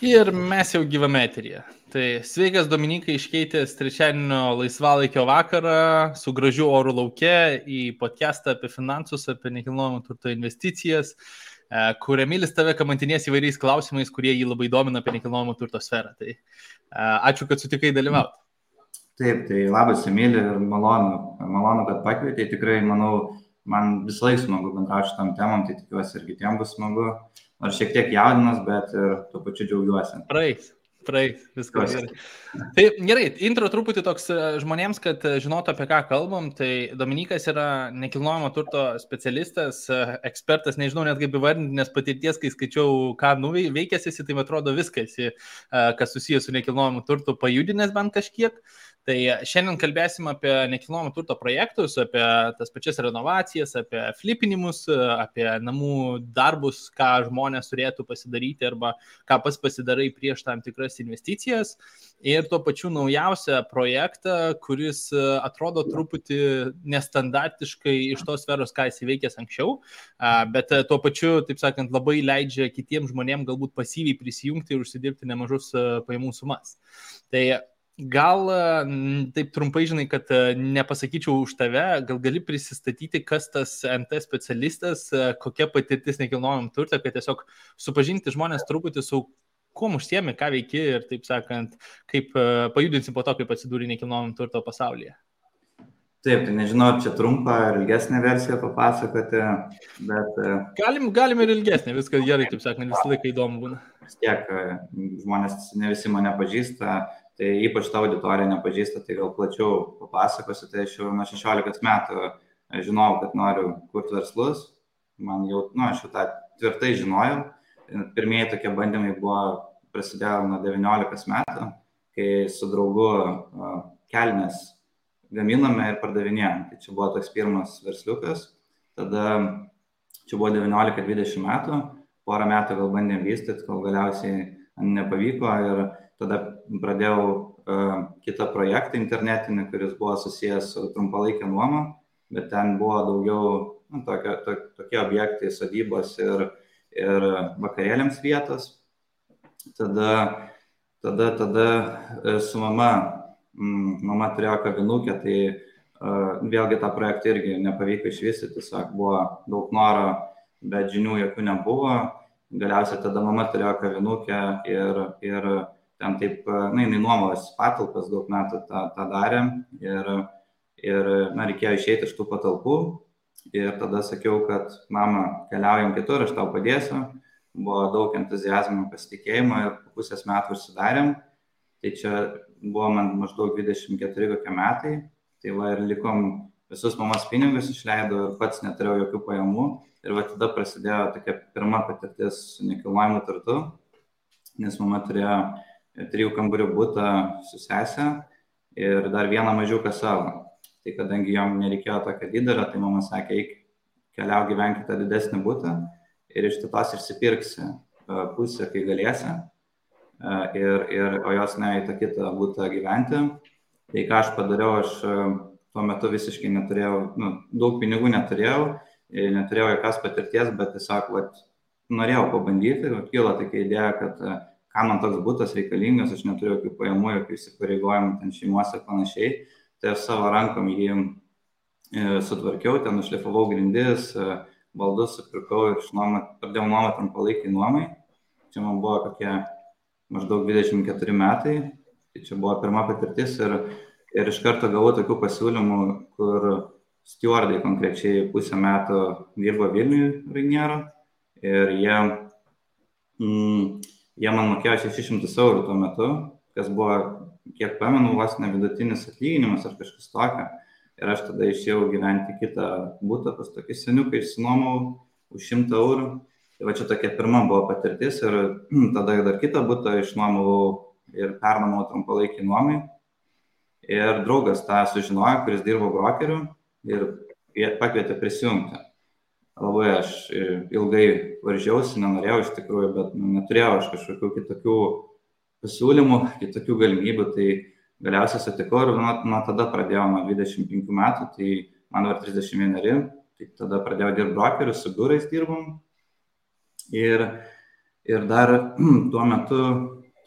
Ir mes jau gyvame eteryje. Tai sveikas Dominikai iškeitęs trečiadienio laisvalaikio vakarą su gražiu oru lauke į podcastą apie finansus, apie nekilnojamo turto investicijas, kur Emilis tave kamantinės įvairiais klausimais, kurie jį labai domina apie nekilnojamo turto sferą. Tai ačiū, kad sutikai dalyvauti. Taip, tai labas Emili ir malonu, kad pakvietei. Tikrai, manau, man visą laiką smagu bendrauti šitam temam, tai tikiuosi ir kitiems bus smagu. Nors šiek tiek jaudinas, bet ir tuo pačiu džiaugiuosi. Praeis, viskas gerai. Tai gerai, intro truputį toks žmonėms, kad žinotų, apie ką kalbam. Tai Dominikas yra nekilnojamo turto specialistas, ekspertas, nežinau net kaip įvardinti, nes patirties, kai skaičiau, ką nuveikęs esi, tai man atrodo viskas, kas susijęs su nekilnojamu turtu, pajudinęs bent kažkiek. Tai šiandien kalbėsim apie nekilnojamo turto projektus, apie tas pačias renovacijas, apie flipinimus, apie namų darbus, ką žmonės turėtų pasidaryti arba ką pats pasidarai prieš tam tikras investicijas. Ir tuo pačiu naujausią projektą, kuris atrodo truputį nestandartiškai iš tos sferos, ką esi veikęs anksčiau, bet tuo pačiu, taip sakant, labai leidžia kitiems žmonėms galbūt pasyviai prisijungti ir užsidirbti nemažus pajamų sumas. Tai gal taip trumpai, žinai, kad nepasakyčiau už tave, gal gali prisistatyti, kas tas NT specialistas, kokia patirtis nekilnojamam turte, kad tiesiog supažinti žmonės truputį su kuom užsiemi, ką veiki ir, taip sakant, kaip pajudinsi po to, kaip atsidūrė nekilnojamam turto pasaulyje. Taip, tai nežinau, čia trumpą ir ilgesnę versiją papasakoti, bet... Galim ir ilgesnę, viskas gerai, taip sakant, visą laiką įdomu būna. Vis tiek, žmonės ne visi mane pažįsta, tai ypač ta auditorija nepažįsta, tai gal plačiau papasakosiu, tai aš jau nuo 16 metų žinojau, kad noriu kurti verslus, man jau, aš jau tą tvirtai žinojau, pirmieji tokie bandymai prasidėjo nuo 19 metų, kai su draugu kelnes gaminame ir pardavinėjom, tai čia buvo toks pirmas versliukas, tada čia buvo 19-20 metų, porą metų gal bandėm vystyti, kol galiausiai nepavyko ir tada pradėjau kitą projektą internetinį, kuris buvo susijęs su trumpalaikė nuoma, bet ten buvo daugiau tokie objektai, sodybos ir vakarėliams vietos. Tada su mama turėjo kavinukę, tai vėlgi tą projektą irgi nepavyko išvystyti, tiesiog buvo daug noro, bet žinių jokių nebuvo. Galiausiai tada mama turėjo kavinukę ir ten taip, jinai nuomos patalpas daug metų tą darė ir reikėjo išeiti iš tų patalpų ir tada sakiau, kad mama, keliaujam kitur, aš tau padėsiu. Buvo daug entuziazmo, pasitikėjimo ir po pusės metų užsidarėm. Tai čia buvo man maždaug 24 kokie metai, tai va ir likom visus mamos pinigus išleido ir pats neturėjau jokių pajamų. Ir va tada prasidėjo tokia pirma patirtis su nekilnojamu turtu, nes mama turėjo 3 kambarių butą su sese ir dar vieną mažiuką savo. Tai kadangi jom nereikėjo tokio didelio, tai mama sakė, eik, keliau gyvenk tą didesnį butą ir iš tos išsipirksi pusę, kai galėsi, o jos ne į tą kitą butą gyventi. Tai ką aš padariau, aš tuo metu visiškai neturėjau, daug pinigų neturėjau jokios patirties, bet tiesiog norėjau pabandyti, kilo tokia idėja, kad ką man toks butas reikalingas, aš neturiu jokių pajamų, jokių įsipareigojimų ten šeimose ir panašiai, tai aš savo rankom jį sutvarkiau, ten nušlifavau grindis, baldus supirkau ir pradėjau nuomą trumpalaikiai nuomai. Čia man buvo kokie maždaug 24 metai, tai čia buvo pirma patirtis ir iš karto gavau tokių pasiūlymų, kur stewardai konkrečiai pusę metų dirbo Vilniuje Rainiero ir jie man mokėjo 600 eurų tuo metu, kas buvo, kiek pamenu, vos ne vidutinis atlyginimas ar kažkas tokio. Ir aš tada išėjau gyventi kitą butą, pas tokį seniuką išsinuomau už 100 eurų. Tai va čia tokia pirma buvo patirtis ir tada dar kitą butą išnuomavau ir pernuomau trumpalaikį nuomai. Ir draugas tą sužinojo, kuris dirbo brokeriu ir pakvietė prisijungti. Labai aš ilgai varžiausi, nenorėjau iš tikrųjų, bet neturėjau aš kažkokių kitokių pasiūlymų, kitokių galimybių, tai galiausiai sutikau ir nuo tada pradėjau nuo 25 metų, tai man var 31, tai tada pradėjau dirbti brokeriu, su biurais dirbom ir Ir dar tuo metu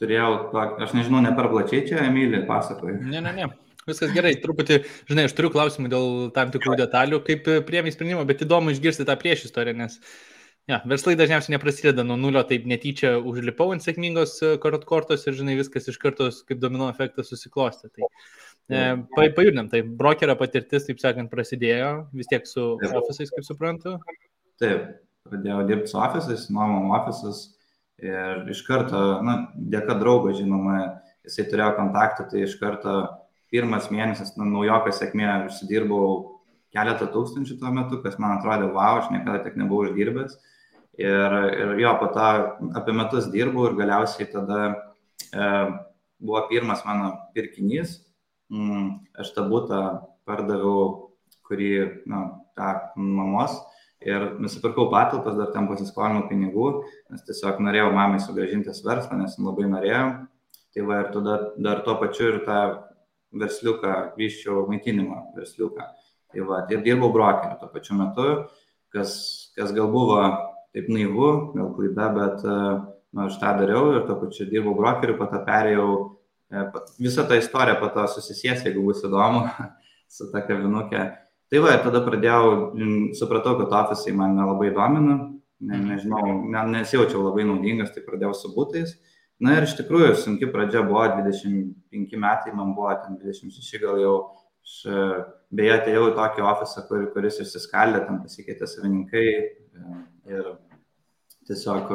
turėjau, aš nežinau, ne per plačiai čia, Emilį, pasakoju. Ne. Viskas gerai, truputį, žinai, aš turiu klausimų dėl tam tikrų detalių, kaip priėmė sprendimą, bet įdomu išgirsti tą priešistorę, nes verslai dažniausiai neprasideda nuo nulio, taip netyčia užlipau ant sėkmingos kortos ir, žinai, viskas iš karto kaip domino efektas susiklostė. Tai pajudinam, tai brokerio patirtis, taip sakant, prasidėjo vis tiek su ofisais, kaip suprantu. Taip, pradėjau dirbti su ofisais, nuomom ofisus. Ir iš karto, dėka draugo, žinoma, jisai turėjo kontaktą, tai iš karto pirmas mėnesis, naujokas sėkmė, užsidirbau keletą tūkstančių tuo metu, kas man atrodė, wow, aš niekada tiek nebuvau uždirbęs. Ir jo, po to apie metus dirbau ir galiausiai tada buvo pirmas mano pirkinys. Aš tą butą pardaviau, kurį, tą mamos. Ir nusipirkau patalpas, dar ten pasiskolinau pinigų, nes tiesiog norėjau mamai sugrąžintis verslą, nes labai norėjau. Tai va, ir tada dar tuo pačiu ir tą versliuką, vyščiau maitinimo versliuką. Tai va, ir dirbau brokeriu tuo pačiu metu, kas gal buvo taip naivu, gal klaida, bet aš tą dariau ir tuo pačiu dirbau brokeriu, po to perėjau, visą tą istoriją po to susisies, jeigu bus įdomu, su ta kavinukė. Tai va, tada supratau, kad ofisai man nelabai domina, nežinau, nesijaučiau labai naudingas, tai pradėjau su butais. Ir iš tikrųjų, sunki pradžia buvo, 25 metai, man buvo ten 26 gal jau. Aš beje atėjau į tokį ofisą, kuris išsiskaldė, ten pasikeitė savininkai ir tiesiog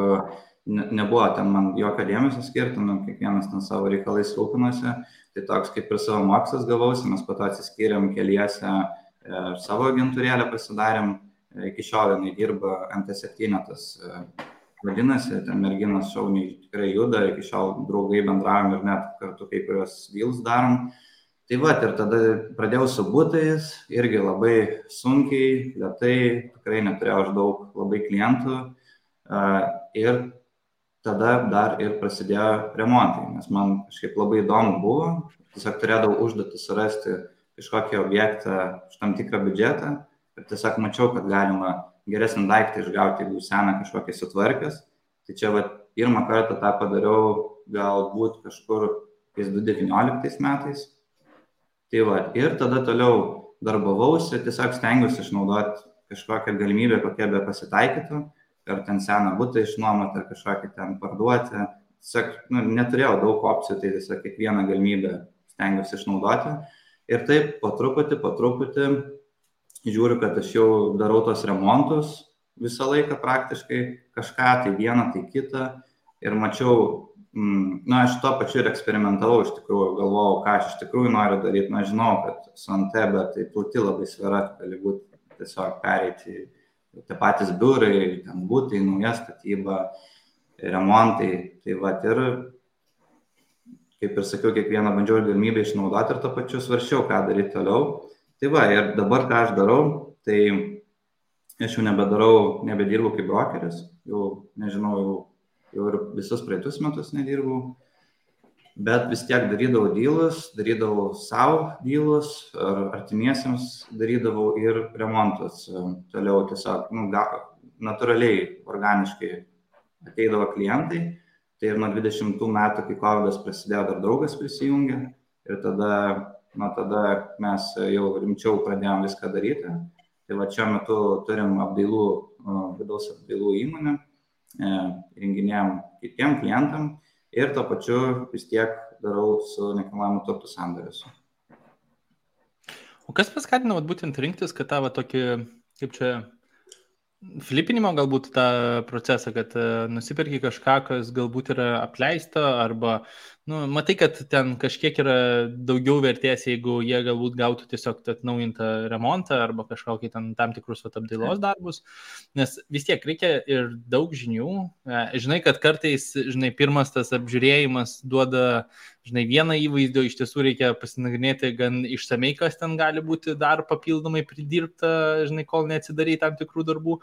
nebuvo ten man jokio dėmesio skirti, kiekvienas ten savo reikalais rūpinosi. Tai toks kaip ir savo mokslas gavausi, mes po to atsiskyrėm keliese. Savo agentūrėlę pasidarėm, iki šiol jinai dirba MT7, tas vadinasi, ten merginas šauniai tikrai juda, iki šiol draugai bendravom ir net kartu kai kurios deals darom. Tai va, ir tada pradėjau su butais, irgi labai sunkiai, lėtai, tikrai neturėjau aš daug labai klientų ir tada dar ir prasidėjo remontai, nes man kažkaip labai įdomu buvo, tiesiog turėdavau užduotį surasti kažkokį objektą už tam tikrą biudžetą ir tiesiog mačiau, kad galima geresnį daiktą išgauti, jeigu seną kažkokį sutvarkęs. Tai čia pirmą kartą tą padariau galbūt kažkur 2019 metais. Tai ir tada toliau darbavausi, tiesiog stengiausi išnaudoti kažkokią galimybę, kokia be pasitaikytų, ar ten seną butą išnuomoti, ar kažkokį ten parduoti. Tiesiog neturėjau daug opcijų, tai tiesiog kiekvieną galimybę stengiausi išnaudoti. Ir taip po truputį žiūriu, kad aš jau darau tos remontus visą laiką praktiškai, kažką, tai vieną, tai kitą. Ir mačiau, aš tuo pačiu ir eksperimentavau, iš tikrųjų, galvojau, ką aš iš tikrųjų noriu daryti. Žinau, kad su NT, bet tai plati labai sfera, gali būti tiesiog pereiti tie patys biurai, ten būtai, nauja statyba, remontai. Tai ir kaip ir sakiau, kiekvieną bandžiau galimybę išnaudoti ir to pačiu svarsčiau, ką daryti toliau. Tai ir dabar ką aš darau, tai aš jau nebedirbu kaip brokeris, jau nežinau, jau ir visus praeitus metus nedirbau, bet vis tiek darydavau savo dealus, ar artimiesiems darydavau ir remontus. Toliau tiesiog, natūraliai, organiškai ateidavo klientai. Tai ir nuo 20 metų, kai COVID prasidėjo, dar draugas prisijungė ir tada mes jau rimčiau pradėjom viską daryti. Tai šiuo metu turim vidaus apdailų įmonę, renginėjom kitiem klientam ir to pačiu vis tiek darau su nekilnojamu turtu sandorius. O kas paskatino būtent rinktis, kad tavo tokį, kaip čia, flipinimo galbūt tą procesą, kad nusipirki kažką, kas galbūt yra apleista, arba, matai, kad ten kažkiek yra daugiau vertės, jeigu jie galbūt gautų tiesiog atnaujintą remontą, arba kažkokį tam tikrus apdailos darbus, nes vis tiek reikia ir daug žinių. Žinai, kad kartais, pirmas tas apžiūrėjimas duoda, vieną įvaizdį, iš tiesų reikia pasinagrinėti gan išsamei, kas ten gali būti dar papildomai pridirbta, kol neatsidarai tam tikrų darbų.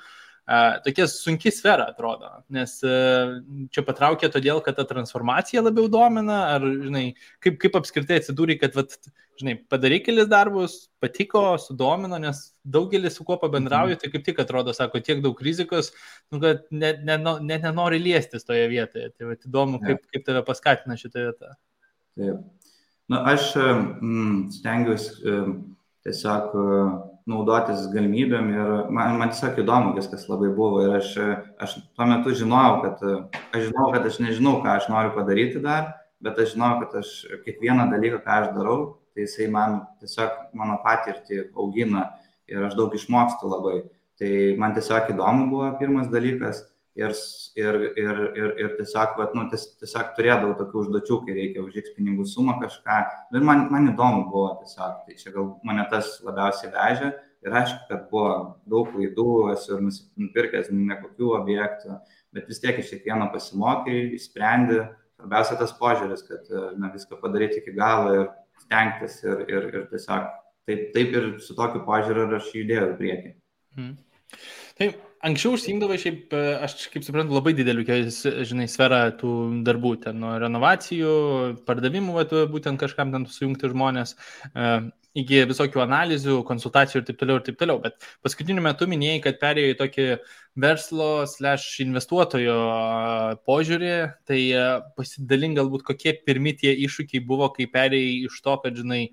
tokia sunki sfera atrodo, nes čia patraukė todėl, kad ta transformacija labiau domina, ar, žinai, kaip apskritai atsidūrė, kad, vat, žinai, padarai kelis darbus, patiko, sudomino, nes daugelis su kuo pabendrauju, tai kaip tik atrodo, sako, tiek daug rizikos, nu, kad net nenori liestis toje vietoje. Tai vat, įdomu, kaip tave paskatina šitą vietą. Taip. Na, aš stengiuosi tiesiog naudotis galimybėm ir man tiesiog įdomu viskas labai buvo ir aš tuo metu žinojau, kad aš nežinau, ką aš noriu padaryti dar, bet aš žinojau, kad aš kiekvieną dalyką, ką aš darau, tai jisai man tiesiog mano patirtį augina ir aš daug išmokstu labai. Tai man tiesiog įdomu buvo pirmas dalykas ir tiesiog, tiesiog turėdavau tokių užduočių, kai reikia už X pinigų sumą kažką. Ir man įdomu buvo tiesiog, tai čia gal mane tas labiausiai vežė. Ir aišku, kad buvo daug klaidų, esu ir nupirkęs nekokių objektų, bet vis tiek iš kiekvieno pasimokai, išsprendi. Svarbiausia tas požiūris, kad viską padaryti iki galo ir stengtis ir tiesiog taip ir su tokiu požiūriu aš judėjau į priekį. Taip. Anksčiau užsiimdavai šiaip, aš kaip suprantu, labai didelių, žinai, sferą tų darbų, ten nuo renovacijų, pardavimų, būtent kažkam ten sujungti žmonės, iki visokių analizių, konsultacijų ir taip toliau. Bet paskutiniu metu minėjai, kad perėjai į tokį verslo/investuotojo požiūrį, tai pasidalink galbūt, kokie pirmi tie iššūkiai buvo, kai perėjai iš to, kad, žinai,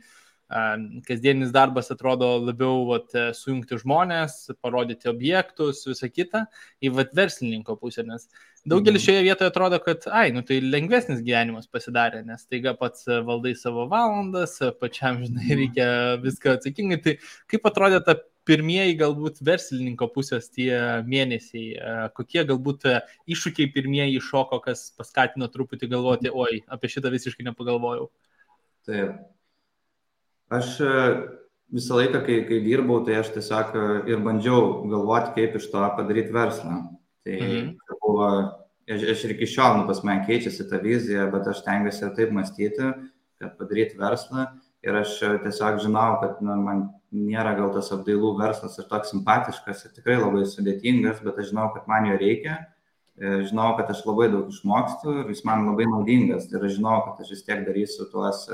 kasdienis darbas atrodo labiau sujungti žmonės, parodyti objektus, visą kitą, į verslininko pusę, nes daugelis šioje vietoje atrodo, kad tai lengvesnis gyvenimas pasidarė, nes taiga pats valdai savo valandas, pačiam, žinai, reikia viską atsakingai. Tai kaip atrodė ta pirmieji galbūt verslininko pusės tie mėnesiai, kokie galbūt iššūkiai pirmieji iššoko, kas paskatino truputį galvoti, apie šitą visiškai nepagalvojau. Taip. Aš visą laiką, kai dirbau, tai aš tiesiog ir bandžiau galvoti, kaip iš to padaryti verslą. Tai buvo, aš ir iki šiol, pas mane keičiasi ta vizija, bet aš tengiuosi taip mąstyti, kad padaryti verslą. Ir aš tiesiog žinau, kad man nėra gal tas apdailų verslas ir toks simpatiškas ir tikrai labai sudėtingas, bet aš žinau, kad man jo reikia. Žinau, kad aš labai daug išmokstu ir jis man labai naudingas. Ir aš žinau, kad aš vis tiek darysiu tuos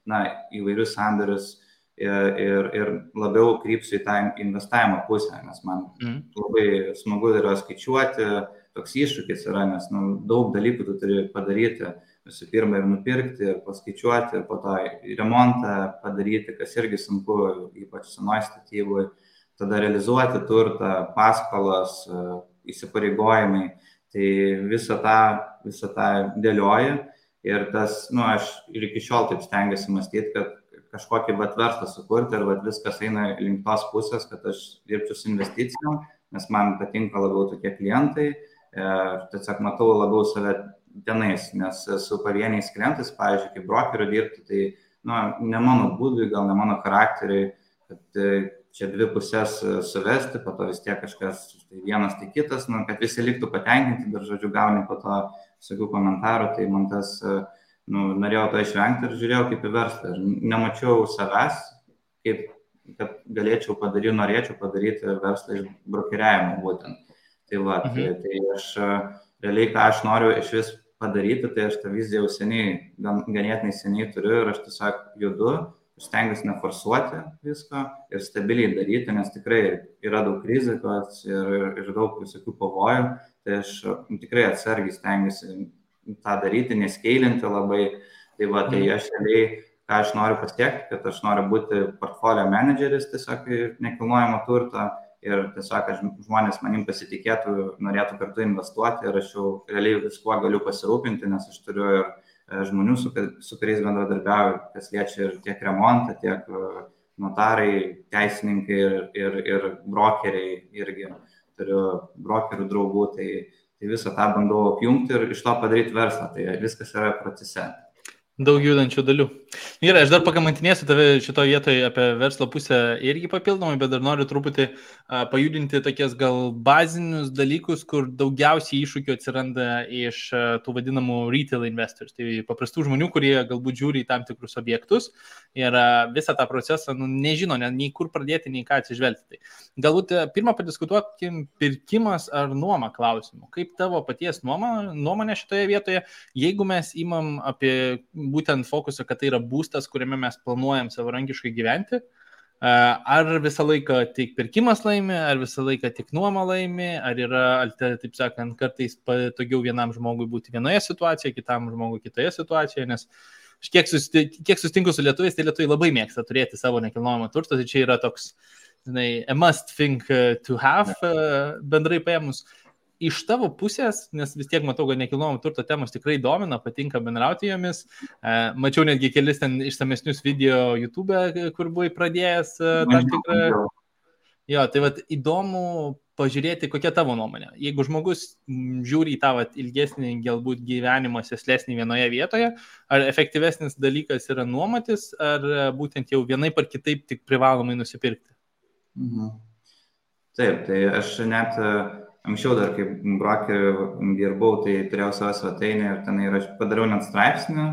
įvairius sandorius ir labiau krypsiu į tą investavimo pusę, nes man labai smagu yra skaičiuoti, toks iššūkis yra, nes daug dalykų tu turi padaryti, visų pirma ir nupirkti, ir paskaičiuoti, ir po to remontą padaryti, kas irgi sunku, ypač senoj statybui, tada realizuoti turtą, paskolas, įsipareigojimai, tai visą tą dėlioji. Ir tas, aš ir iki šiol taip stengiuosi mąstyti, kad kažkokį verslą sukurti ir viskas eina link tos pusės, kad aš dirbčiau su investicijom, nes man patinka labiau tokie klientai, tiesiog matau labiau save tenais, nes su pavieniais klientais, pavyzdžiui, kaip brokeriu dirbti, tai ne mano būdui, gal ne mano charakteriui, kad čia dvi pusės suvesti, po to vis tiek kažkas, tai vienas, tai kitas, kad visi liktų patenkinti, dar žodžiu gauni po to visokių komentarų, tai man tas, norėjau to išvengti ir žiūrėjau kaip į verslą. Ir nemačiau savęs, kad norėčiau padaryti verslą iš brokeriavimo būtent. Tai aš realiai, ką aš noriu iš vis padaryti, tai aš tą viziją jau ganėtinai seniai turiu ir aš tiesiog judu, stengiuosi neforsuoti visko ir stabiliai daryti, nes tikrai yra daug rizikos ir daug visokių pavojų. Tai aš tikrai atsargiai stengiuosi tą daryti, neskeilinti labai. Tai aš realiai, ką aš noriu pasiekti, kad aš noriu būti portfolio menedžeris tiesiog nekilnojamo turto ir tiesiog žmonės manim pasitikėtų, norėtų kartu investuoti ir aš jau realiai viskuo galiu pasirūpinti, nes aš turiu ir žmonių, su kuriais bendradarbiauju, kas liečia ir tiek remontą, tiek notarai, teisininkai ir brokeriai irgi. Turiu brokerių draugų, tai visą tą bandau apjungti ir iš to padaryti verslą, tai viskas yra procese. Daug judančių dalių. Gerai, aš dar pakamantinėsiu tave šitoje vietoje apie verslo pusę irgi papildomai, bet dar noriu truputį pajudinti tokias gal bazinius dalykus, kur daugiausiai iššūkių atsiranda iš tų vadinamų retail investors, tai paprastų žmonių, kurie galbūt žiūri į tam tikrus objektus ir visą tą procesą nežino, nei kur pradėti, nei ką atsižvelgti. Tai galbūt pirmą padiskutuokim pirkimas ar nuoma klausimų. Kaip tavo paties nuomonė šitoje vietoje, jeigu mes imam apie būtent fokusą, kad tai yra būstas, kuriame mes planuojam savarankiškai gyventi, ar visą laiką tik pirkimas laimi, ar visą laiką tik nuoma laimi, ar yra, taip sakant, kartais patogiau vienam žmogui būti vienoje situacijoje, kitam žmogui kitoje situacijoje, nes kiek sustinku su lietuviais, tai lietuviai labai mėgsta turėti savo nekilnojamą turtą, tai čia yra toks, a must thing to have, bendrai paėmus. Iš tavo pusės, nes vis tiek matau, kad nekilnojamo turto temos tikrai domina, patinka bendrauti jomis. Mačiau netgi kelis ten išsamesnius video YouTube, kur buvai pradėjęs tam tikrą. Jo, tai vat įdomu pažiūrėti, kokia tavo nuomonė. Jeigu žmogus žiūri į tą ilgesnį galbūt gyvenimą sėslesnį vienoje vietoje, ar efektyvesnis dalykas yra nuomotis, ar būtent jau vienaip ar kitaip tik privalomai nusipirkti? Taip, tai aš net anksčiau dar kaip brokeriu dirbau, tai turėjau savo svetainę ir ten aš padariau net straipsnį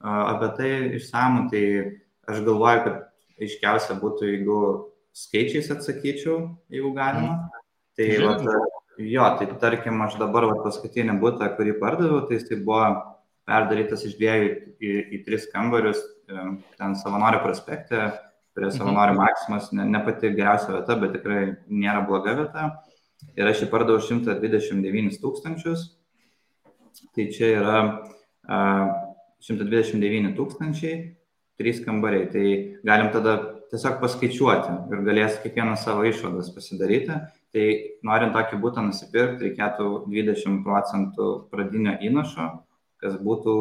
apie tai išsamų, tai aš galvoju, kad aiškiausia būtų, jeigu skaičiais atsakyčiau, jeigu galima. Tai tai tarkim, aš dabar paskutinį butą, kurį pardaviau, tai jis buvo perdarytas iš 2 į 3 kambarius, ten Savanorių prospekte, prie Savanorių Maksimos, ne pati geriausia vieta, bet tikrai nėra bloga vieta. Ir aš jį pardaviau 129 000, tai čia yra 129 000, 3 kambariai, tai galim tada tiesiog paskaičiuoti ir galės kiekvienas savo išvadas pasidaryti. Tai norint tokį butą nusipirkti, reikėtų 20% pradinio įnašo, kas būtų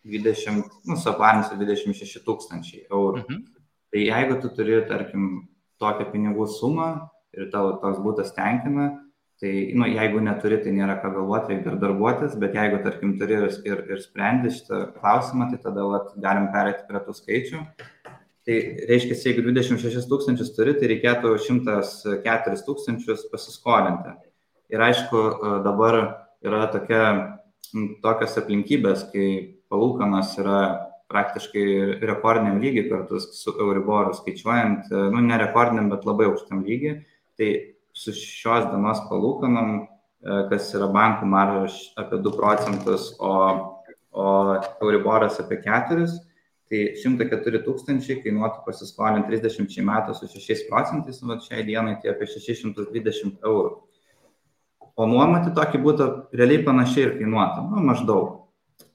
26 000 eurų. Tai jeigu tu turi, tarkim, tokią pinigų sumą ir tavo toks būtas tenkina, tai jeigu neturi, tai nėra ką galvoti, reikia darbuotis, bet jeigu, tarkim, turi ir sprendi šitą klausimą, tai tada galim pereiti prie tų skaičių. Tai reiškia, jeigu 26 000 turi, tai reikėtų 104 000 pasiskolinti. Ir aišku, dabar yra tokios aplinkybės, kai palūkanos yra praktiškai rekordiniam lygiai kartu su Euriboru skaičiuojant, ne rekordiniam, bet labai aukštam lygiai. Tai su šios dienos palūkanom, kas yra bankų marža apie 2%, o Euriboras apie 4%, tai 104 000 kainuotų pasiskolinti 30 metų su 6%, šiai dienai tai apie 620 eurų. O nuomoti tokį būtų realiai panašiai ir kainuotų, maždaug.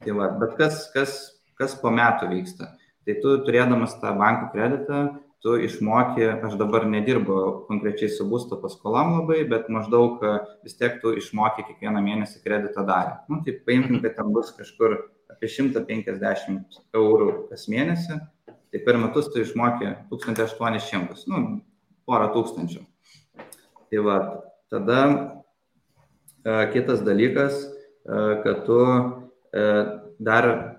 Tai bet kas po metų vyksta? Tai tu turėdamas tą bankų kreditą, tu išmoki, aš dabar nedirbu konkrečiai su būsto paskolom labai, bet maždaug vis tiek tu išmoki kiekvieną mėnesį kredito dalį. Tai paimkim, kad ten bus kažkur apie 150 eurų kas mėnesį, tai per metus tu išmoki 1800, porą tūkstančių. Tai tada kitas dalykas, kad tu dar,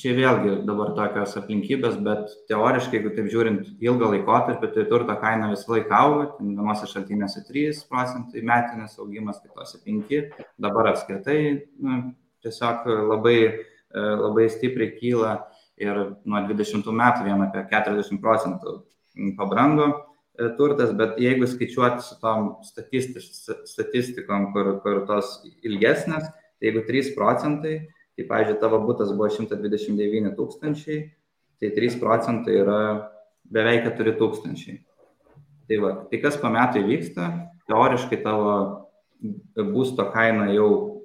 čia vėlgi dabar tokios aplinkybės, bet teoriškai, jeigu taip žiūrint ilgą laikotarpį, tai turto kaina visą laiką auga, vienose šaltinėse 3% metinis augimas, kitose 5%, dabar apskritai tiesiog labai stipriai kyla ir nuo 20 metų vien apie 40% pabrango turtas, bet jeigu skaičiuoti su tom statistikom, kur tos ilgesnės, tai jeigu 3%, tai, pavyzdžiui, tavo butas buvo 129 000, tai 3% yra beveik 4 000. Tai kas po metų įvyksta, teoriškai tavo būsto kaina jau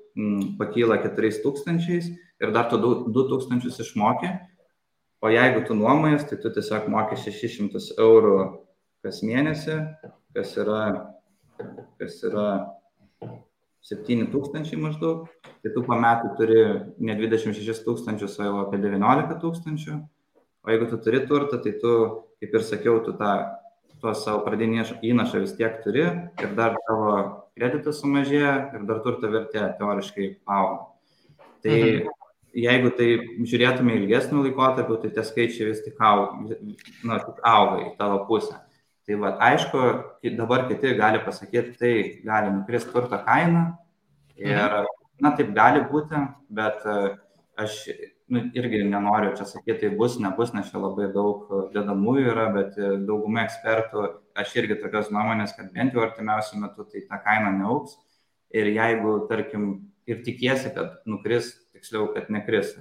pakyla 4 000 ir dar tu 2 000 išmokė, o jeigu tu nuomojas, tai tu tiesiog mokė 600 eurų kas mėnesį, kas yra 7 000 maždaug, tai tu po metų turi ne 26 000, o jau apie 19 000, o jeigu tu turi turtą, tai tu, kaip ir sakiau, tu tuos savo pradinį įnašą vis tiek turi ir dar tavo kreditas sumažėja ir dar turto vertė teoriškai auga. Tai jeigu tai žiūrėtume ilgesnių laikotarpių, tai tie skaičiai vis tik auga į tavo pusę. Tai va, aišku, dabar kiti gali pasakyti, tai gali nukristi turto kaina ir, taip gali būti, bet aš irgi nenoriu čia sakyti, tai bus, nebus, nes čia labai daug dedamųjų yra, bet dauguma ekspertų, aš irgi tokios nuomonės, kad bent jau artimiausiu metu tai ta kaina neaugs. Ir jeigu, tarkim, ir tikiesi, kad nukris, tiksliau, kad nekris.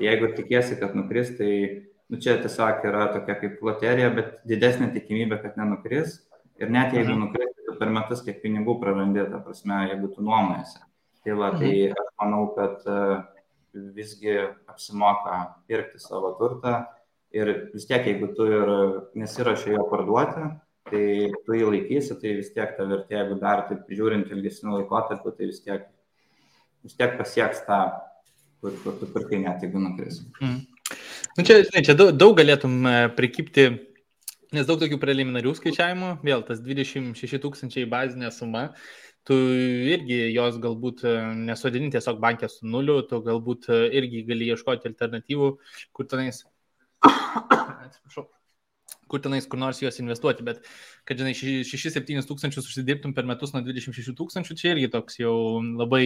Jeigu tikiesi, kad nukris, tai čia tiesiog yra tokia kaip loterija, bet didesnė tikimybė, kad nenukris. Ir net jeigu nukris, tai per metus kiek pinigų prarandi, ta prasme, jeigu tu nuomojasi. Tai va, tai aš manau, kad visgi apsimoka pirkti savo turtą. Ir vis tiek, jeigu tu ir nesiruoši jo parduoti, tai tu jį laikysi, tai vis tiek ta vertė, jeigu dar taip žiūrint ilgesnių laikotarpių, tai vis tiek pasieks tą, kur tu pirkai net, jeigu nukris. Čia daug galėtum prikipti, nes daug tokių preliminarių skaičiavimų, vėl tas 26 000 bazinė suma, tu irgi jos galbūt nesodini tiesiog bankė su nuliu, tu galbūt irgi gali ieškoti alternatyvų, kur tenais kur nors juos investuoti, bet kad, žinai, 6-7 tūkstančius užsidirbtum per metus nuo 26 000, čia irgi toks jau labai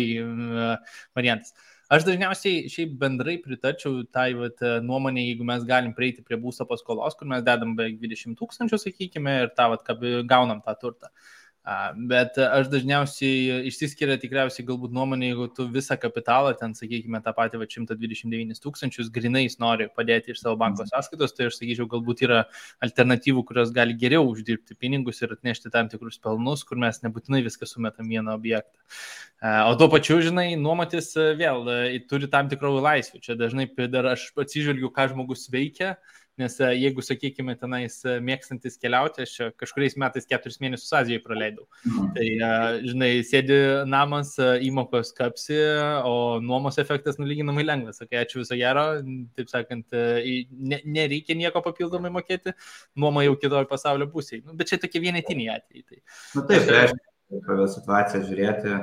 variantas. Aš dažniausiai šiaip bendrai pritarčiau tai nuomonė, jeigu mes galim prieiti prie būsto paskolos, kur mes dedam beveik 20 000, sakykime, ir gaunam tą turtą. Bet aš dažniausiai išsiskiria tikriausiai galbūt nuomonė, jeigu tu visą kapitalą, ten, sakykime, tą patį 129 000 grinais nori padėti iš savo banko sąskaitos, tai aš sakyčiau, galbūt yra alternatyvų, kurios gali geriau uždirbti pinigus ir atnešti tam tikrus pelnus, kur mes nebūtinai viską sumetam vieną objektą. O tuo pačiu, žinai, nuomotis vėl turi tam tikrų laisvių. Čia dažnai dar aš atsižvelgiu, ką žmogus veikia. Nes jeigu, sakykime, tenais mėgstantis keliauti, aš kažkuriais metais 4 mėnesius Azijoje praleidau. Tai, žinai, sėdi namas, įmokos kapsi, o nuomos efektas nulyginamai lengvas. Sakai, ačiū viso gero, taip sakant, nereikia nieko papildomai mokėti, nuoma jau kitoj pasaulio pusėje. Bet čia tokie vienetiniai atvejai. Taip, tai reiškia, situaciją žiūrėti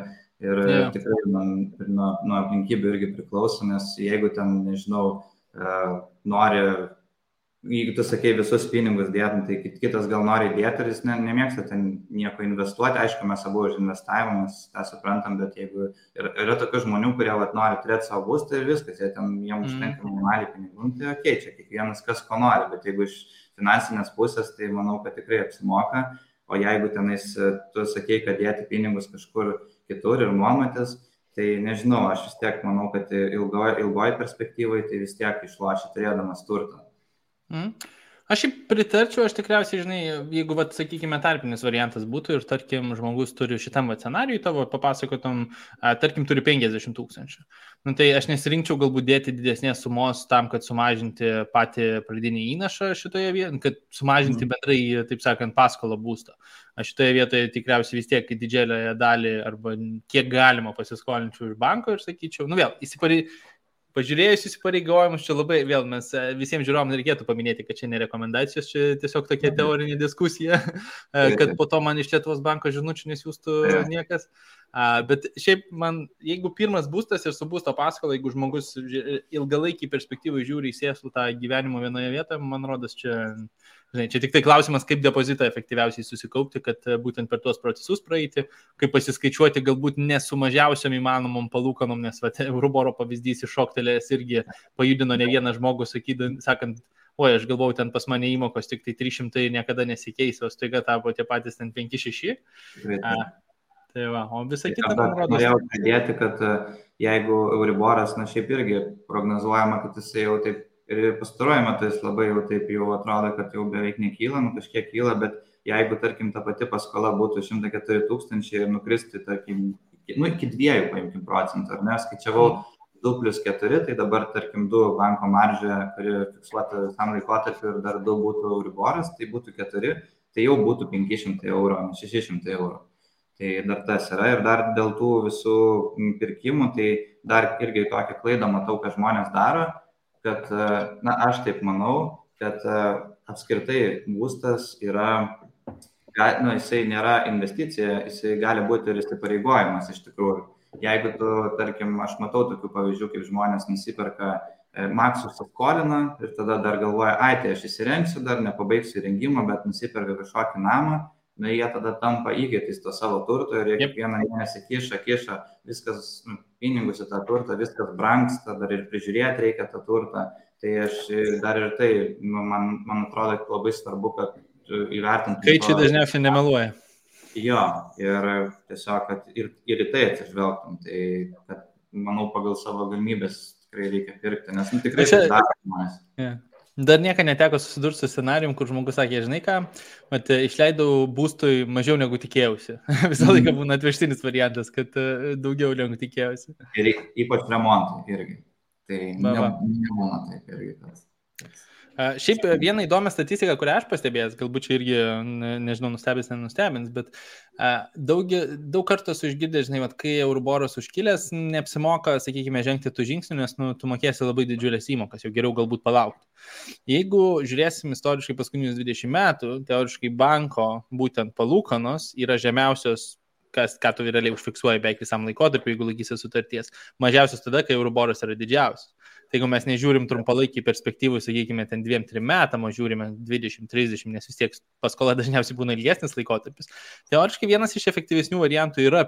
ir tikrai nuo aplinkybių irgi priklauso, nes jeigu ten, nežinau, nori... Jeigu tu sakei visus pinigus dėtum, tai kitas gal nori dėti ir jis nemėgsta ten nieko investuoti. Aišku, mes abu už investavimą, mes tą suprantam, bet jeigu yra tokių žmonių, kurie nori turėti savo būstą ir viskas, jiems užtenka minimaliai pinigų, tai čia kiekvienas kas ko nori, bet jeigu iš finansinės pusės, tai manau, kad tikrai apsimoka. O jeigu tenais tu sakei, kad dėti pinigus kažkur kitur ir nuomotis, tai nežinau, aš vis tiek manau, kad ilgoji perspektyvai tai vis tiek išloši turėdamas turtą. Aš pritarčiau, aš tikriausiai, žinai, jeigu, sakykime, tarpinis variantas būtų ir, tarkim, žmogus turi šitam scenarijui tavo papasakotum, tarkim, turi 50 000. Tai aš nesirinkčiau galbūt dėti didesnės sumos tam, kad sumažinti patį pradinį įnašą šitoje vietoje, kad sumažinti bendrai, taip sakant, paskolą būsto. Aš šitoje vietoje tikriausiai vis tiek didžiąją dalį arba kiek galima pasiskolinčiau iš banko ir sakyčiau, vėl, pažiūrėjus įsipareigojimus, čia labai, vėl mes visiems žiūrovam reikėtų paminėti, kad čia ne rekomendacijos, čia tiesiog tokia teorinė diskusija, kad po to man iš Lietuvos banko žinučių nesiųstų niekas. Bet šiaip man, jeigu pirmas būstas ir su būsto paskola, jeigu žmogus ilgalaikį perspektyvą žiūri į sėslų tą gyvenimo vienoje vietoje, man rodos, čia tik tai klausimas, kaip depozitą efektyviausiai susikaupti, kad būtent per tuos procesus praeiti, kaip pasiskaičiuoti galbūt nesumažiausiam įmanomom palūkanom, nes Euriboro pavyzdys iššoktelės irgi pajudino ne vieną žmogų, sakant, oi, aš galvojau, ten pas mane įmokos tik tai 300 niekada nesikeis, o staiga tapo tie patys ten 5-6. Tai va, o visą kitą man rodos. Norėjau pridėti, kad jeigu Euriboras, šiaip irgi prognozuojama, kad jisai jau taip ir pastaruoju metu jis labai jau taip jau atrodo, kad jau beveik nekyla, kažkiek kyla, bet jeigu, tarkim, ta pati paskola būtų 104 000 ir nukristi, tarkim, iki 2 paimkim procentų, ar ne, skaičiavau 2+4, tai dabar, tarkim, 2 banko maržė, kuri fiksuota visam laikotarpiu ir dar 2 būtų Euriboras, tai būtų 4, tai jau būtų 500 eurų, 600 eurų. Tai dar tas yra ir dar dėl tų visų pirkimų, tai dar irgi tokią klaidą matau, kad žmonės daro, kad, aš taip manau, kad apskritai būstas yra, jisai nėra investicija, jisai gali būti ir įsipareigojimas iš tikrųjų. jeigu tu, tarkim, aš matau tokių pavyzdžių, kaip žmonės nusiperka maksus skolina ir tada dar galvoja, tai aš įsirengsiu, dar nepabaigsiu įrengimą, bet nusiperka kažkokį namą, jie tada tampa įgėtis to savo turto ir jie kiekvieną mėnesį kiša, viskas, pinigus į tą turtą, viskas brangsta, dar ir prižiūrėti reikia tą turtą. Tai aš dar ir tai, man atrodo, labai svarbu, kad įvertintų. Skaičiai dažniausiai nemeluoja. Jo, ir tiesiog, kad ir į tai atsižvelgtum, tai kad, manau, pagal savo galimybės tikrai reikia pirkti, nes tikrai tai daro žmonės. Dar niekada neteko susidurti su scenarijum, kur žmogus sakė, žinai ką, išleidau būstui mažiau negu tikėjausi. Visą laiką būna atvežtinis variantas, kad daugiau negu tikėjausi. Ir ypač remontai irgi. Tai nebūna taip irgi. Šiaip vieną įdomią statistiką, kurią aš pastebėjęs, galbūt čia irgi, nežinau, nenustebins, bet daug kartų esu išgirdęs, žinai, kai Euriboras užkilęs, neapsimoka, sakykime, žengti tų žingsnių, nes tu mokėsi labai didžiulės įmokas, jau geriau galbūt palaukti. Jeigu žiūrėsim istoriškai paskutinius 20 metų, teoriškai banko būtent palūkanos yra žemiausios, ką tu realiai užfiksuoji beveik visam laikotarpiu, jeigu laikysi sutarties, mažiausios tada, kai Euriboras yra didžiausias. Tai jeigu mes nežiūrim trumpalaikį perspektyvų, sakykime, ten 2-3 metam, o žiūrime 20-30, nes vis tiek paskola dažniausiai būna ilgesnis laikotarpis. Teoriškai vienas iš efektyvesnių variantų yra,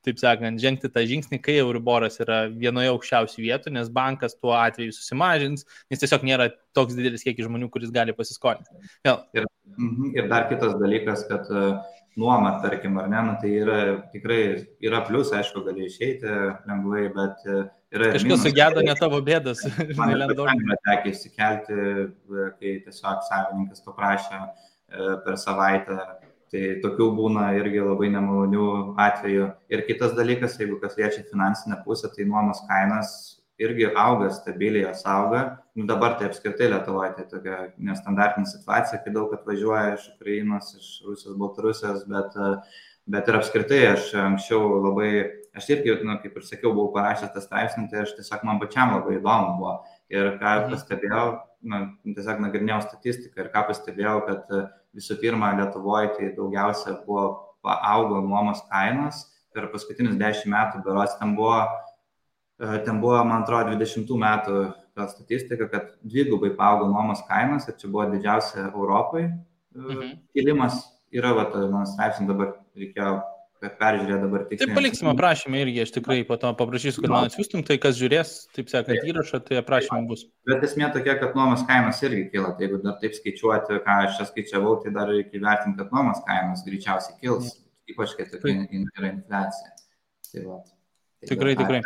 taip sakant, žengti tą žingsnį, kai Euriboras yra vienoje aukščiausių vietų, nes bankas tuo atveju susimažins, nes tiesiog nėra toks didelis kiekis žmonių, kuris gali pasiskolinti. Ir dar kitas dalykas, kad nuoma, tarkim, ar ne, tai tikrai yra plius, aišku, gali išeiti lengvai, bet kažkas sugedo ne tavo bėdas. Man tekia išsikelti, kai tiesiog savininkas paprašė per savaitę. Tai tokių būna irgi labai nemalonių atvejų. Ir kitas dalykas, jeigu kas liečia finansinę pusę, tai nuomos kainas irgi auga, stabiliai jos auga. Dabar tai apskritai Lietuvoje tai tokia nestandartinė situacija, kai daug atvažiuoja iš Ukrainos, iš Rusijos, Baltarusijos, bet ir apskritai aš anksčiau aš irgi, kaip ir sakiau, buvau parašęs tą straipsnį, tai aš tiesiog man pačiam labai įdomu buvo. Ir ką pastebėjau, tiesiog nagrinėjau statistiką ir ką pastebėjau, kad visų pirma Lietuvoje tai daugiausia augo nuomos kainos per paskutinius 10 metų, berods ten buvo, man atrodo, 20 metų ta statistika, kad dvigubai paaugo nuomos kainos ir čia buvo didžiausia Europai kilimas. Yra, mano straipsnį dabar reikėjo peržiūrėti dabar tiksliai. Taip, paliksime aprašymą irgi, aš tikrai po to paprašysiu, kad man atsiųstum, tai kas žiūrės, taip sakant, įrašą, tai aprašymai bus. Bet esmė tokia, kad nuomos kainos irgi kyla, tai jeigu dar taip skaičiuoti, ką aš čia skaičiavau, tai dar reikia įvertinti, kad nuomos kainos greičiausiai kils, ypač kai tokia yra infliacija. Tai tikrai.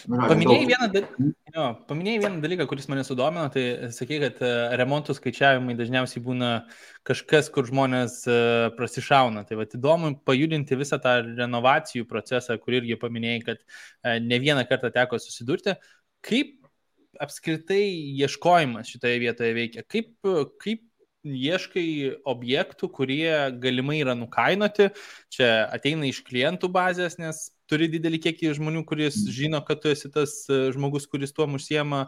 Paminėjai vieną dalyką, kuris mane sudomino, tai sakai, kad remontų skaičiavimai dažniausiai būna kažkas, kur žmonės prasišauna. Tai įdomu pajudinti visą tą renovacijų procesą, kur irgi paminėjai, kad ne vieną kartą teko susidurti. Kaip apskritai ieškojimas šitoje vietoje veikia? Kaip ieškai objektų, kurie galimai yra nukainoti? Čia ateina iš klientų bazės, nes turi didelį kiekį žmonių, kuris žino, kad tu esi tas žmogus, kuris tuom užsiema,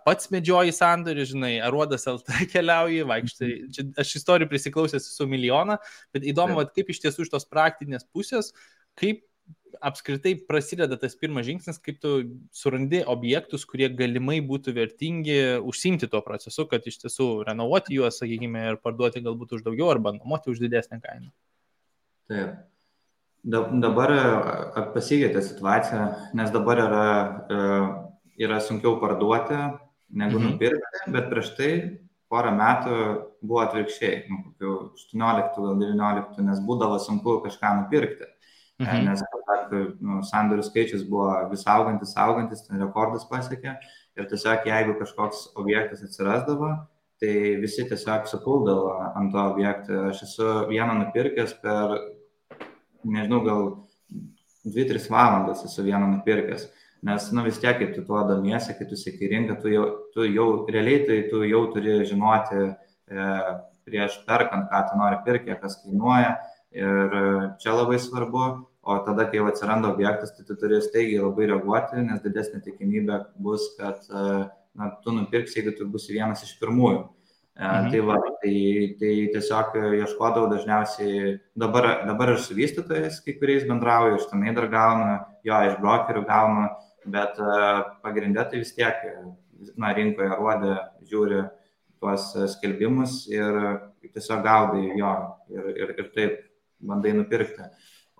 pats medžioji sandorį, žinai, Aruodas LT keliauji, vaikštai. Aš istorijų prisiklausęs su milijoną, bet įdomu, kaip iš tiesų iš tos praktinės pusės, kaip apskritai prasideda tas pirmas žingsnis, kaip tu surandi objektus, kurie galimai būtų vertingi užsiimti tuo procesu, kad iš tiesų renovuoti juos, sakykime, ir parduoti galbūt už daugiau arba nuomoti už didesnę kainą. Taip. Dabar pasikeitė situacija, nes dabar yra sunkiau parduoti negu nupirkti, bet prieš tai porą metų buvo atvirkščiai, kokių 18 gal 19, nes būdavo sunku kažką nupirkti, nes sandorių skaičius buvo vis augantis, ten rekordus pasiekė ir tiesiog jeigu kažkoks objektas atsirasdavo, tai visi tiesiog supuldavo ant to objektą. Aš esu vieną nupirkęs per nežinau, gal 2-3 valandas esu vieną nupirkęs, nes vis tiek, kai tu tuo domiesi, kai tu seki rinką, tu jau realiai tai tu jau turi žinoti prieš perkant, ką tu nori pirkti, kas kainuoja ir čia labai svarbu, o tada, kai jau atsiranda objektas, tai tu turi staigiai labai reaguoti, nes didesnė tikimybė bus, kad tu nupirksi, jeigu tu būsi vienas iš pirmųjų. Tai tiesiog ieškodavau dažniausiai, dabar ir su vystytojais kai kuriais bendrauju, iš tenai dar gaunu, jo, iš brokerių gaunu, bet pagrindė tai vis tiek, rinkoje rodė, žiūri tuos skelbimus ir tiesiog gaudai jo ir taip bandai nupirkti.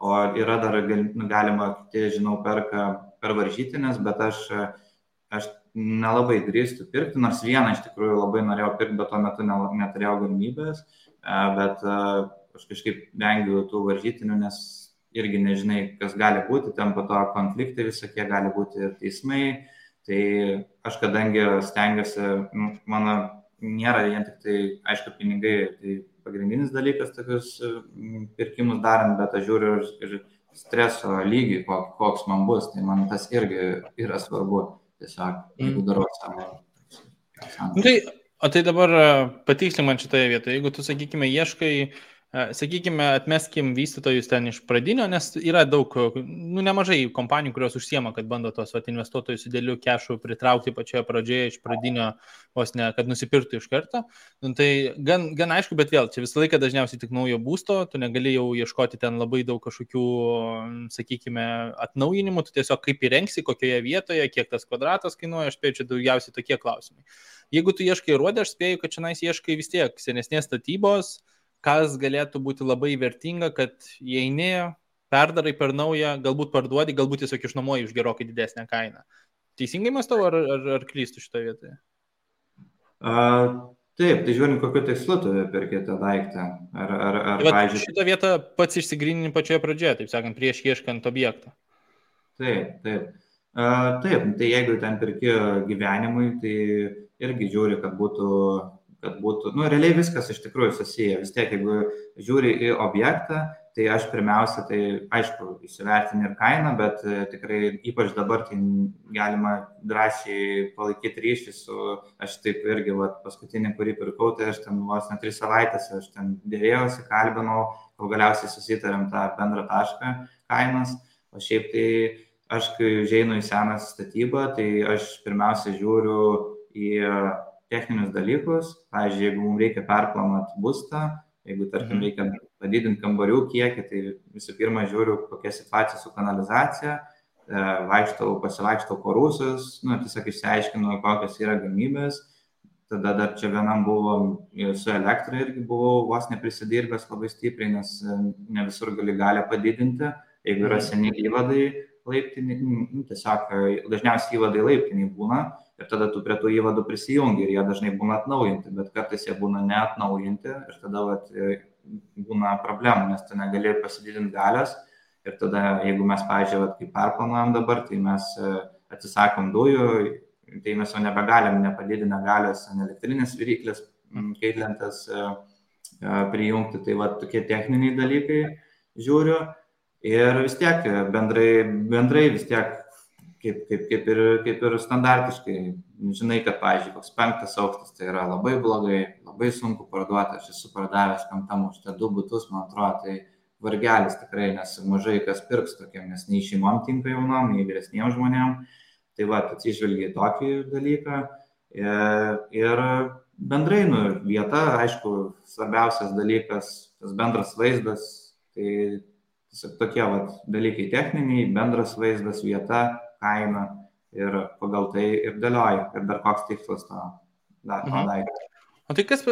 O yra dar galima, kiti, žinau, perka per varžytinės, bet aš nelabai drįstu pirkti, nors vieną iš tikrųjų labai norėjau pirkti, bet tuo metu neturėjau galimybės, bet aš kažkaip vengiu tų varžytinių, nes irgi nežinai, kas gali būti, ten po to konfliktai visokie gali būti ir teismai, tai aš kadangi stengiuosi, mano nėra vien tik tai, aišku, pinigai, tai pagrindinis dalykas tokius pirkimus darant, bet aš žiūriu ir streso lygį, koks man bus, tai man tas irgi yra svarbu. Tiesiog, jeigu darau savo. O tai dabar patikslink man šitoje vietoje, jeigu tu, sakykime, ieškai, atmeskim vystytojus ten iš pradinio, nes yra daug, nemažai kompanijų, kurios užsiema, kad bando tos investuotojus didelių kešų pritraukti pačioje pradžioje iš pradinio, vos ne, kad nusipirktų iš karto. Tai gan aišku, bet vėl, čia visą laiką dažniausiai tik naujo būsto, tu negali jau ieškoti ten labai daug kažkokių, sakykime, atnaujinimų, tu tiesiog kaip įrengsi, kokioje vietoje, kiek tas kvadratas kainuoja, aš spėju, čia daugiausiai tokie klausimai. Jeigu tu ieškai ruodę, aš spėju, kad čia ieškai vis tiek senesnės statybos, kas galėtų būti labai vertinga, kad įeini, perdarai per naują, galbūt parduodi, galbūt tiesiog išnuomoji už gerokai didesnę kainą. Teisingai mąstau, ar klystu šitoje vietoje? Taip, tai žiūrint, kokiu tikslu tu perki tą daiktą. Pavyzdžiui, šitą vietą pats išsigrynini pačioje pradžioje, taip sakant, prieš ieškant objektą. Taip, tai jeigu ten perki gyvenimui, tai irgi žiūri, kad būtų, realiai viskas iš tikrųjų susiję. Vis tiek, jeigu žiūri į objektą, tai aš pirmiausia, tai aišku, įsivertini ir kainą, bet tikrai ypač dabar tai galima drąsiai palaikyti ryšį su, aš taip irgi, paskutinį, kurį pirkau, tai aš ten vos ne 3 savaitės, aš ten dėrėjausi, kalbinau, kol galiausiai susitarėm tą bendrą tašką kainos, o šiaip tai aš, kai užeinu į seną statybą, tai aš pirmiausia žiūriu į techninius dalykus, pavyzdžiui, jeigu mums reikia perplanuoti būstą, jeigu, tarkim, reikia padidinti kambarių kiekį, tai visų pirma žiūriu, kokia situacija su kanalizacija, pasivaikštau po rūsius, tiesiog išsiaiškinu, kokios yra galimybės, tada dar čia vienam buvo su elektra irgi buvau vos neprisidirbęs labai stipriai, nes ne visur gali padidinti, jeigu yra seni įvadai laiptiniai, tiesiog dažniausiai įvadai laiptiniai būna, ir tada tu prie tų įvadų prisijungi ir jie dažnai būna atnaujinti, bet kartais jie būna neatnaujinti ir tada būna problemų, nes tu negali pasididinti galios ir tada, jeigu mes, pavyzdžiui, kaip perplanuojam dabar, tai mes atsisakom dujų, tai mes jau nebegalim nepadidinę galios ant elektrinės viryklės, kaitlentės prijungti, tai tokie techniniai dalykai žiūriu ir vis tiek bendrai vis tiek kaip ir standartiškai, žinai, kad, pavyzdžiui, koks 5 aukštas, tai yra labai blogai, labai sunku parduoti, aš esu pardavęs 5 aukšte 2 butus, man atrodo, tai vargelis tikrai, nes mažai kas pirks tokiam, nes nei šeimom tinka jaunom, nei vyresniem žmonėm, tai atsižvelgia į tokį dalyką ir bendrai, vieta, aišku, svarbiausias dalykas, tas bendras vaizdas, tai tiesiog tokie dalykai techniniai, bendras vaizdas, vieta, kaina ir pagal tai ir dėlioja, ir dar koks tikslas to daikto. O tai kas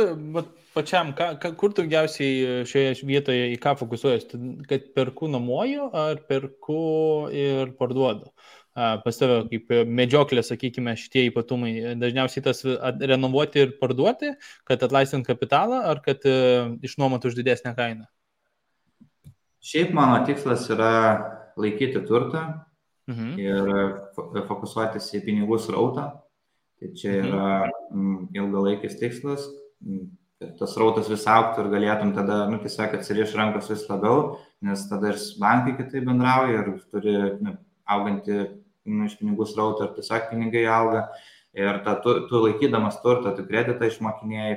pačiam, kur daugiausiai šioje vietoje į ką fokusuojas, kad perku nuomoju ar perku ir parduodu? Pas tave kaip medžioklė, sakykime, šitie ypatumai, dažniausiai tas renovuoti ir parduoti, kad atlaisvint kapitalą ar kad išnuomoti už didesnę kainą? Šiaip mano tikslas yra laikyti turtą ir fokusuotis į pinigų srautą. Tai čia yra ilgalaikis tikslas, kad tas srautas vis augtų ir galėtum tada, tiesiog atsiriš rankos vis labiau, nes tada ir bankai kitaip bendrauja ir turi augantį iš pinigų srautą ir tiesiog pinigai auga. Ir tu laikydamas turtą, tu kreditą išmokinėjai,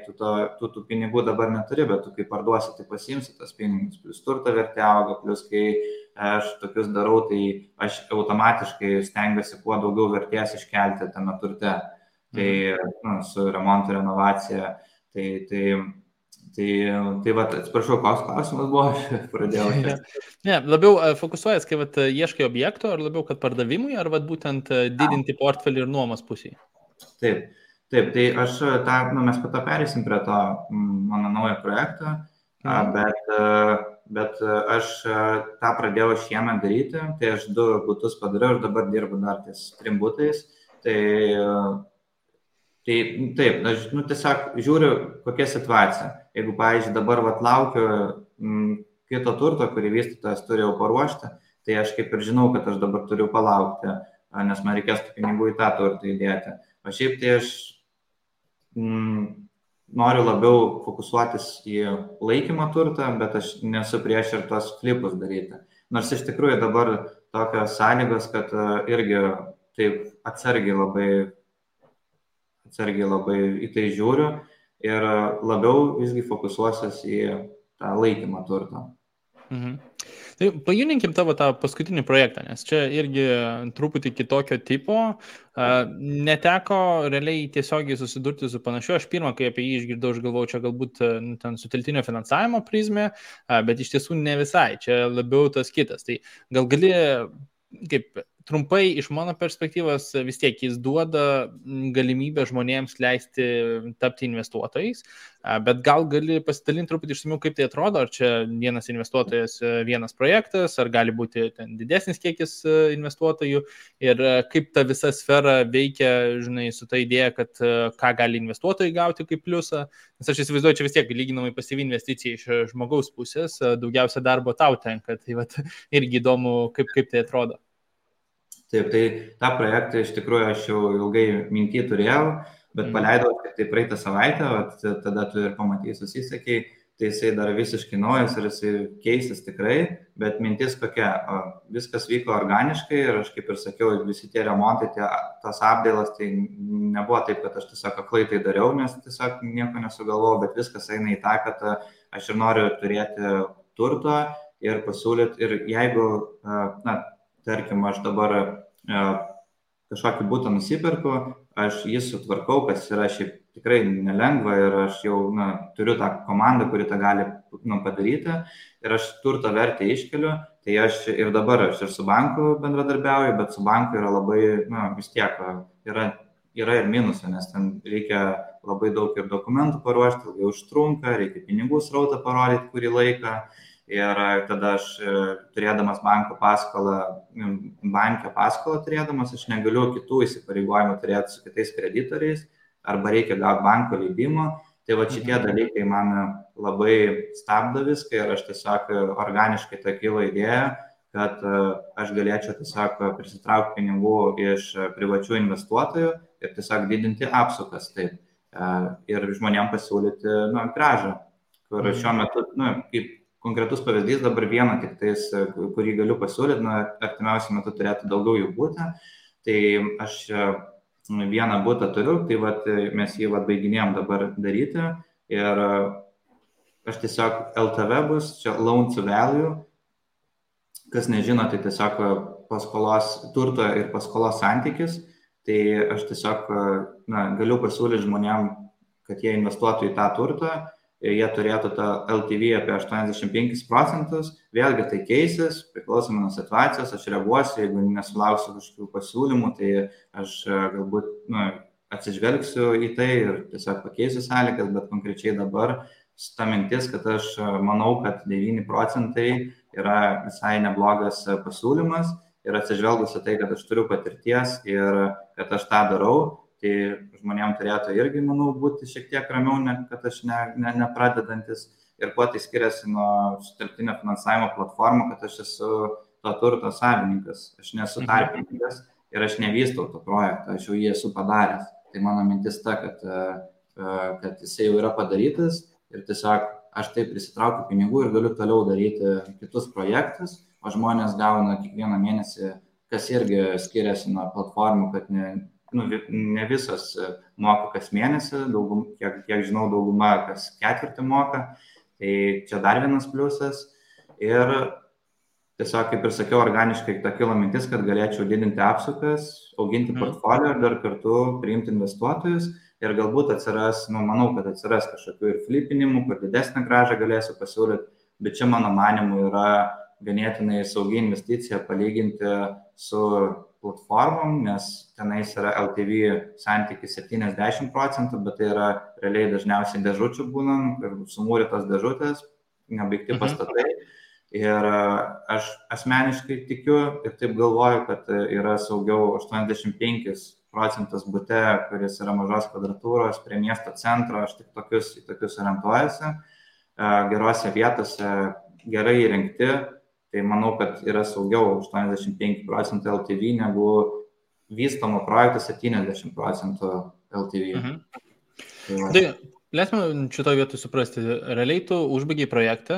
tu tų pinigų dabar neturi, bet tu kai parduosi, tai pasiimsi tas pinigus, plus turto vertė auga, plus kai aš tokius darau, tai aš automatiškai stengiuosi kuo daugiau vertės iškelti tame turte. Tai su remontu, renovacija, Tai va, atsiprašau, koks klausimas buvo, aš pradėjau. Ne, labiau fokusuojas, kai ieškai objekto, ar labiau, kad pardavimui, ar būtent didinti portfelį ir nuomos pusėje? Taip, tai aš mes po to perėsim prie to mano naujo projekto, bet aš tą pradėjau šiemet daryti, tai aš 2 butus padariau ir dabar dirbu dar ties 3 butais. Tai taip, aš tiesiog žiūriu, kokia situacija. Jeigu, pavyzdžiui, dabar laukiu kito turto, kurį vystytojas turi jau paruošti, tai aš kaip ir žinau, kad aš dabar turiu palaukti, nes man reikės pinigų į tą turtą įdėti. O šiaip tai aš noriu labiau fokusuotis į laikymą turtą, bet aš nesu prieš ir tos flipus daryti. Nors iš tikrųjų dabar tokios sąlygos, kad irgi taip atsargiai labai į tai žiūriu ir labiau visgi fokusuosiuos į tą laikymą turtą. Tai pajudinkim tavo tą paskutinį projektą, nes čia irgi truputį kitokio tipo. Neteko realiai tiesiogiai susidurti su panašiu. Aš pirmą, kai apie jį išgirdau, aš galvojau, čia galbūt ten sutelktinio finansavimo prizmė, bet iš tiesų ne visai. Čia labiau tas kitas. Tai gal gali, kaip trumpai iš mano perspektyvos, vis tiek jis duoda galimybę žmonėms leisti tapti investuotojais, bet gal gali pasidalinti truputį išsamiau, kaip tai atrodo, ar čia vienas investuotojas, vienas projektas, ar gali būti ten didesnis kiekis investuotojų ir kaip ta visa sfera veikia, žinai, su ta idėja, kad ką gali investuotojai gauti kaip pliusą, nes aš įsivaizduoju, čia vis tiek lyginamai pasyvi investicija iš žmogaus pusės, daugiausia darbo tau tenka, tai irgi įdomu, kaip tai atrodo. Taip, tai tą projektą iš tikrųjų aš jau ilgai mintį turėjau, bet paleidau tik tai praeitą savaitę, tada tu ir pamatysi, susisakei, tai jisai dar visiškai naujas ir jisai keisis tikrai, bet mintis kokia, viskas vyko organiškai ir aš kaip ir sakiau, visi tie remontai, tas apdailas, tai nebuvo taip, kad aš tiesiog aklai tai dariau, nes tiesiog nieko nesugalvojau, bet viskas eina į tą, kad aš ir noriu turėti turto ir pasiūlyti, ir jeigu, tarkim, aš dabar kažkokį butą nusipirku, aš jį sutvarkau, kas yra šiaip tikrai nelengva ir aš jau turiu tą komandą, kuri tą gali padaryti ir aš turto vertę iškeliu, tai aš ir dabar aš ir su banku bendradarbiauju, bet su banku yra labai, vis tiek yra ir minusų, nes ten reikia labai daug ir dokumentų paruošti, ilgai užtrunka, reikia pinigų srautą parodyti kurį laiką. Ir tada aš turėdamas banko paskolą turėdamas, aš negaliu kitų įsipareigojimų turėti su kitais kreditoriais, arba reikia gauti banko leidimo. Tai va šitie dalykai man labai stabdo viską ir aš tiesiog organiškai tą kilo idėją, kad aš galėčiau tiesiog prisitraukti pinigų iš privačių investuotojų ir tiesiog didinti apsukas taip. Ir žmonėms pasiūlyti grąžą, kur šiuo metu, kaip konkretus pavyzdys, dabar vieną tik tais, kurį galiu pasiūlyti, artimiausiu metu turėtų daugiau jų būti. Tai aš vieną butą turiu, tai mes jį baiginėjom dabar daryti ir aš tiesiog LTV bus, čia loan to value, kas nežino, tai tiesiog paskolos turto ir paskolos santykis, tai aš tiesiog galiu pasiūlyti žmonėm, kad jie investuotų į tą turtą. Jie turėtų tą LTV apie 85%, vėlgi tai keisis, priklausomai nuo situacijos, aš reaguosiu, jeigu nesulauksiu kažkokių pasiūlymų, tai aš galbūt atsižvelgsiu į tai ir tiesiog pakeisiu sąlygas, bet konkrečiai dabar ta mintis, kad aš manau, kad 9% yra visai neblogas pasiūlymas ir atsižvelgusi tai, kad aš turiu patirties ir kad aš tą darau, tai žmonėms turėtų irgi, manau, būti šiek tiek ramiau, kad aš nepradedantis. Ir kuo tai skiriasi nuo sutelktinio finansavimo platformų, kad aš esu to turto savininkas. Aš nesu tarpininkas ir aš nevystau to projektą, aš jau jį esu padaręs. Tai mano mintis ta, kad jisai jau yra padarytas ir tiesiog aš taip prisitraukiu pinigų ir galiu toliau daryti kitus projektus, o žmonės gauna kiekvieną mėnesį, kas irgi skiriasi nuo platformų, kad ne visas moka kas mėnesį, kiek žinau, dauguma kas ketvirtį moka, tai čia dar vienas pliusas. Ir tiesiog, kaip ir sakiau, organiškai ta kilo mintis, kad galėčiau didinti apsukas, auginti portfolio ir dar kartu priimti investuotojus, ir galbūt atsiras, manau, kad atsiras kažkokių ir flipinimų, kur didesnę grąžą galėsiu pasiūlyti, bet čia mano manimu yra ganėtinai saugi investicija palyginti su platformom, nes tenais yra LTV santykis 70%, bet tai yra realiai dažniausiai dėžučių būnant ir sumūrytos dėžutės, nebaigti pastatai. Ir aš asmeniškai tikiu ir taip galvoju, kad yra saugiau 85% bute, kuris yra mažos kvadratūros prie miesto centro, aš tik tokius orientuojasi, gerose vietose, gerai įrengti, tai manau, kad yra saugiau 85% LTV negu vystomo projekto 70% LTV. Tai leisime šitoje vietoje suprasti, realiai tu užbaigiai projektą,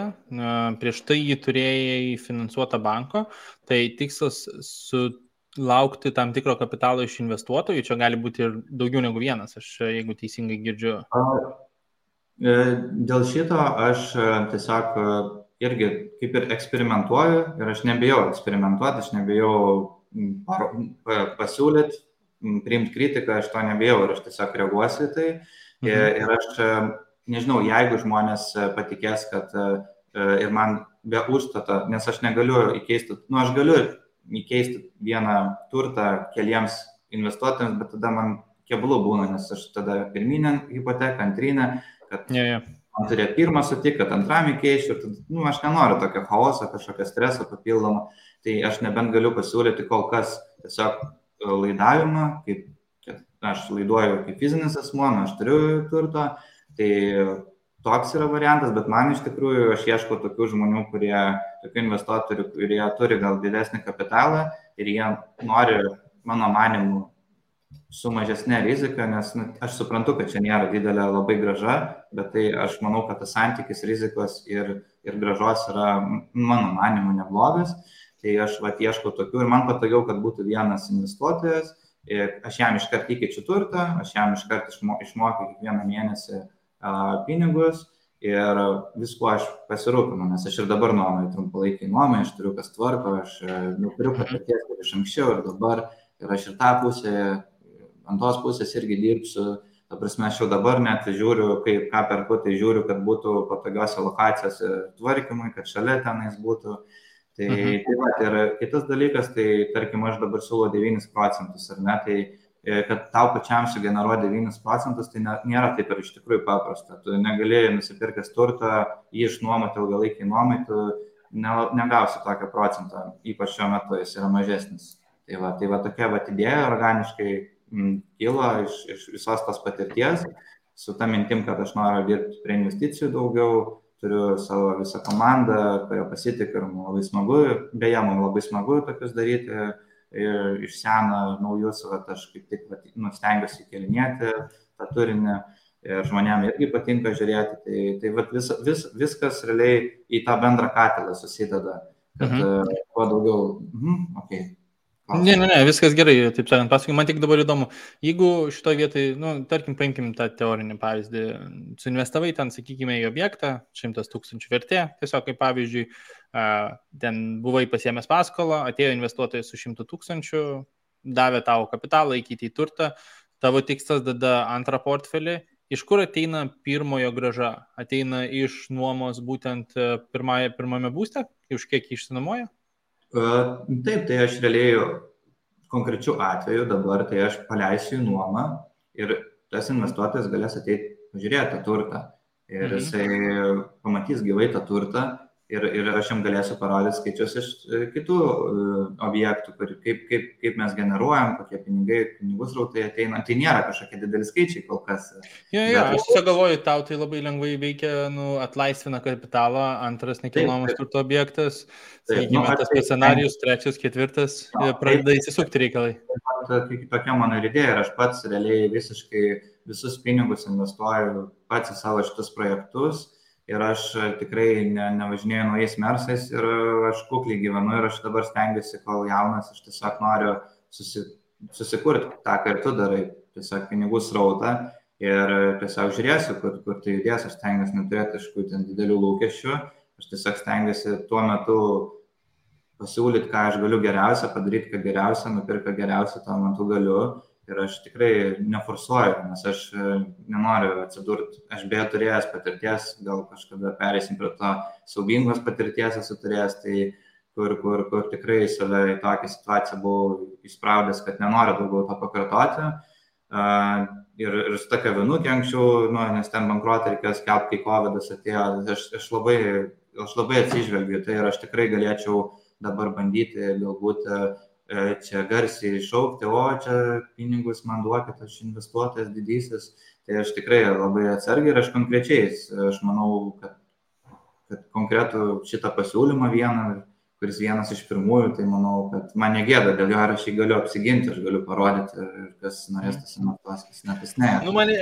prieš tai jį turėjai finansuotą banko, tai tikslas sulaukti tam tikro kapitalo iš investuotojų, čia gali būti ir daugiau negu vienas, aš jeigu teisingai girdžiu. Dėl šito aš tiesiog irgi kaip ir eksperimentuoju ir aš nebijau eksperimentuoti, aš nebijau pasiūlyti, priimti kritiką, aš to nebijau ir aš tiesiog reaguosiu į tai. Ir aš nežinau, jeigu žmonės patikės, kad ir man be užstato, nes aš negaliu įkeisti, aš galiu įkeisti vieną turtą keliems investuotojams, bet tada man keblų būna, nes aš tada pirminę hipoteką, antrinę, kad man turėjo pirmą sutikti, kad antram įkeičiu, ir tada, aš nenoriu tokio chaoso, kažkokio streso papildomo, tai aš nebent galiu pasiūlyti kol kas tiesiog laidavimą, kaip aš laiduoju kaip fizinis asmuo, aš turiu turto, tai toks yra variantas, bet man iš tikrųjų aš ieškau tokių žmonių, tokių investuotojų, kurie turi gal didesnį kapitalą ir jie nori, mano manimu, su mažesnė rizika, nes aš suprantu, kad čia nėra didelė labai graža, bet tai aš manau, kad tas santykis rizikos ir gražos yra, mano manimu, neblogas, tai aš ieškau tokių ir man patogiau, kad būtų vienas investuotojas, aš jam iškart įkeičiu turtą, aš jam iškart išmokiu kiekvieną mėnesį pinigus ir viskuo aš pasirūpinu, nes aš ir dabar nuomoju trumpalaikiai nuomai, aš turiu kas tvarko, aš turiu patirties kaip iš anksčiau ir dabar, ir aš ir tą pusę, ant tos pusės irgi dirbsiu, ta prasme, aš jau dabar net žiūriu, ką perku, tai žiūriu, kad būtų patogiose lokacijose tvarkymui, kad šalia tenais būtų. Tai ir kitas dalykas, tai tarkim, aš dabar siūlau 9%, ar ne, tai kad tau pačiam sugeneruoti 9%, tai nėra taip ir iš tikrųjų paprasta. Tu negalėjai nusipirkęs turtą, jį išnuomoti ilgalaikiai nuomai, tu negausi tokio procento, ypač šiuo metu jis yra mažesnis. Tai va tokia idėja organiškai kilo iš visos tos patirties, su ta mintim, kad aš noriu dirbti prie investicijų daugiau, turiu savo visą komandą, kurio pasitikiu ir man labai smagu, beje, man labai smagu tokius daryti ir iš seno naujus, aš kaip tik stengiuosi kelinėti tą turinį ir žmonėm irgi patinka žiūrėti, tai viskas realiai į tą bendrą katilą susideda, kad kuo daugiau, Ne, viskas gerai, taip sakant, pasakai, man tik dabar įdomu, jeigu šitoje vietoje, tarkim, paimkim tą teorinį pavyzdį, suinvestavai ten, sakykime, į objektą, 100 000 vertė, tiesiog kaip pavyzdžiui, ten buvai pasiėmęs paskolą, atėjo investuotojas su 100 000, davė tau kapitalą, įkeitė į turtą, tavo tikslas dada antrą portfelį, iš kur ateina pirmojo grąža? Ateina iš nuomos būtent pirmame būste, už kiek išsinuomoja? Taip, tai aš realiai konkrečių atveju dabar, tai aš paleisiu į nuomą ir tas investuotojas galės ateiti pažiūrėti tą turtą ir jisai pamatys gyvai tą turtą ir aš jam galėsiu parodyti skaičius iš kitų objektų, kaip mes generuojam, kokie pinigų srautai ateina. Tai nėra kažkokie dideli skaičiai kol kas. Aš tiesiog galvoju, tau tai labai lengvai veikia, atlaisvina kapitalą, antras nekilnojamas turto objektas, sakykime, tas scenarijus, trečias, ketvirtas, pradeda įsisukti reikalai. Tokia mano idėja ir aš pats realiai visiškai visus pinigus investuoju pats į savo šitus projektus. Ir aš tikrai nevažinėju naujais mersais ir aš kukliai gyvenu ir aš dabar stengiuosi, kol jaunas, aš tiesiog noriu susikurti tą, ką ir tu darai, tiesiog pinigų srautą ir tiesiog žiūrėsiu, kur tai judės, aš stengiuosi neturėti kažkokių didelių lūkesčių, aš tiesiog stengiuosi tuo metu pasiūlyti, ką aš galiu geriausia, padaryti, ką geriausia, nupirka geriausia, tuo metu galiu ir aš tikrai neforsuoju, nes aš nenoriu atsidurti, aš beje turėjęs patirties, gal kažkada pereisim prie to siaubingos patirties esu turėjęs, tai kur tikrai save į tokią situaciją buvau įspraudęs, kad nenoriu daugiau to pakartoti. Ir su ta kavinukė anksčiau, nes ten bankrotą reikėjo skelbti, kai COVID-as atėjo, aš labai atsižvelgiu, tai ir aš tikrai galėčiau dabar bandyti galbūt čia garsiai iššaukti, o čia pinigus man duokit, aš investuotojas didysis, tai aš tikrai labai atsargiai ir aš konkrečiai, aš manau, kad konkretų šitą pasiūlymą vieną, kuris vienas iš pirmųjų, tai manau, kad man negėda dėl jo, ar aš jį galiu apsiginti, aš galiu parodyti, ir kas norės tas investuos, kas ne, tas ne. Mane,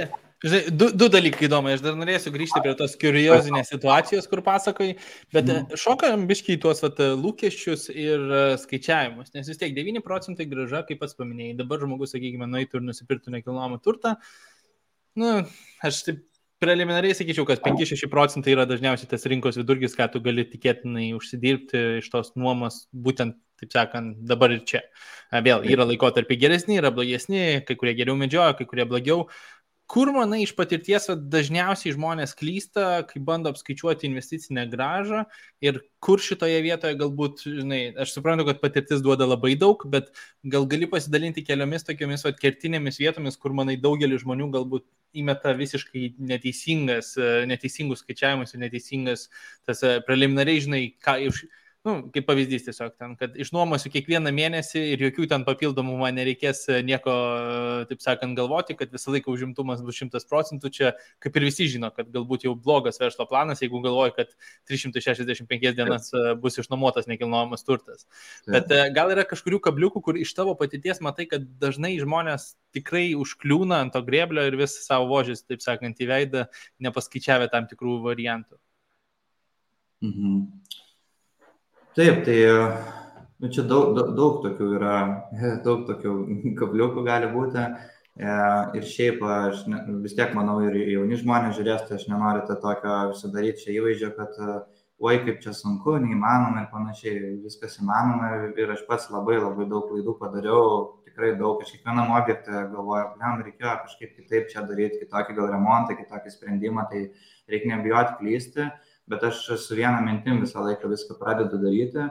žinai, du dalykai įdomu, aš dar norėsiu grįžti prie tos kuriozinės situacijos, kur pasakai, bet šokam biškiai tuos lūkesčius ir skaičiavimus, nes vis tiek 9% grąža, kaip pats paminėjai, dabar žmogus, sakykime, nueitų ir nusipirktų nekilnojamą turtą, aš taip preliminariai sakyčiau, kad 5-6% yra dažniausiai tas rinkos vidurkis, ką tu gali tikėtinai užsidirbti iš tos nuomos, būtent, taip sakant, dabar ir čia. Vėl yra laikotarpiai geresni, yra blogesni, kai kurie geriau medžioja, kai kurie blogiau. Kur, manai, iš patirties dažniausiai žmonės klysta, kai bando apskaičiuoti investicinę grąžą ir kur šitoje vietoje galbūt, žinai, aš suprantu, kad patirtis duoda labai daug, bet gal gali pasidalinti keliomis tokiomis kertinėmis vietomis, kur, manai, daugelis žmonių galbūt įmeta visiškai neteisingus skaičiavimus ir neteisingas tas preliminariai, žinai, kaip pavyzdys tiesiog ten, kad išnuomosiu kiekvieną mėnesį ir jokių ten papildomų man nereikės nieko, taip sakant, galvoti, kad visą laiką užimtumas bus 100%, čia kaip ir visi žino, kad galbūt jau blogas verslo planas, jeigu galvoji, kad 365 dienas bus išnuomotas nekilnojamas turtas. Bet gal yra kažkurių kabliukų, kur iš tavo patirties matai, kad dažnai žmonės tikrai užkliūna ant to grėblio ir vis savo vožės, taip sakant, į veidą, nepaskaičiavę tam tikrų variantų. Taip, tai čia daug tokių yra, daug tokių kabliukų gali būti ir šiaip aš vis tiek manau ir jauni žmonės žiūrės, tai aš nenoriu tą tokio sudaryti čia įvaizdžio, kad oi kaip čia sunku, neįmanoma ir panašiai, viskas įmanoma ir aš pats labai daug klaidų padariau, tikrai daug, aš kiekvienam objektą galvoju, reikėjo kažkaip kitaip čia daryti, kitokį gal remontą, kitokį sprendimą, tai reikia nebijoti klysti. Bet aš su viena mintim visą laiką viską pradedu daryti.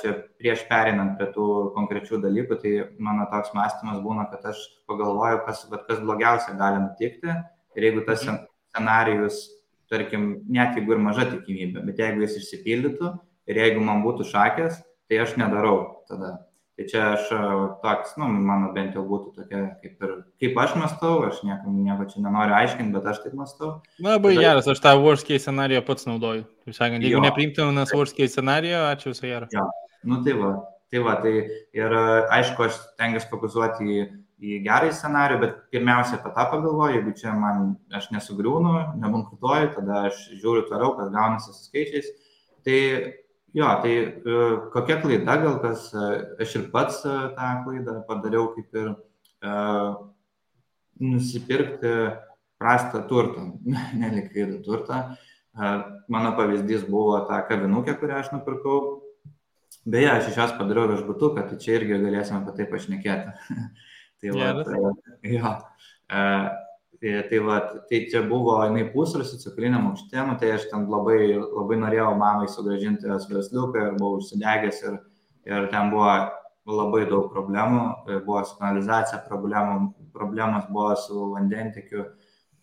Čia prieš pereinant prie tų konkrečių dalykų, tai mano toks mąstymas būna, kad aš pagalvoju, kas blogiausia gali nutikti. Ir jeigu tas scenarijus, tarkim, net jeigu ir maža tikimybė, bet jeigu jis išsipildytų ir jeigu man būtų šakės, tai aš nedarau tada. Tai čia aš toks, mano bent jau būtų tokia, kaip aš mąstau, aš nieko čia nenoriu aiškinti, bet aš taip mąstau. Labai geras, aš tą worst case scenarijo pats naudoju. Taip sakant, jeigu nepriimtinas worst case scenarijo, ačiū visą gerą. Jo, tai ir aišku, aš stengiuosi fokusuoti į gerąjį scenarijų, bet pirmiausia apie tą pagalvoju, jeigu čia aš nesugriūnu, nebankrutuoju, tada aš žiūriu toliau, kas gaunasi su skaičiais. Tai kokia klaida, gal kas, aš ir pats tą klaidą padariau, kaip ir nusipirkti prastą turtą, nelikvidų turtą. Mano pavyzdys buvo ta kavinukė, kurią aš nupirkau. Beje, aš iš jos padariau viešbutuką, tai čia irgi galėsime apie tai pašnekėti. Tai čia buvo jinai pusrūsį cukriniam aukšte, tai aš ten labai norėjau mamai sugrąžinti jos versliuką ir buvau užsidegęs ir ten buvo labai daug problemų, buvo su kanalizacija problemos buvo su vandentiekiu,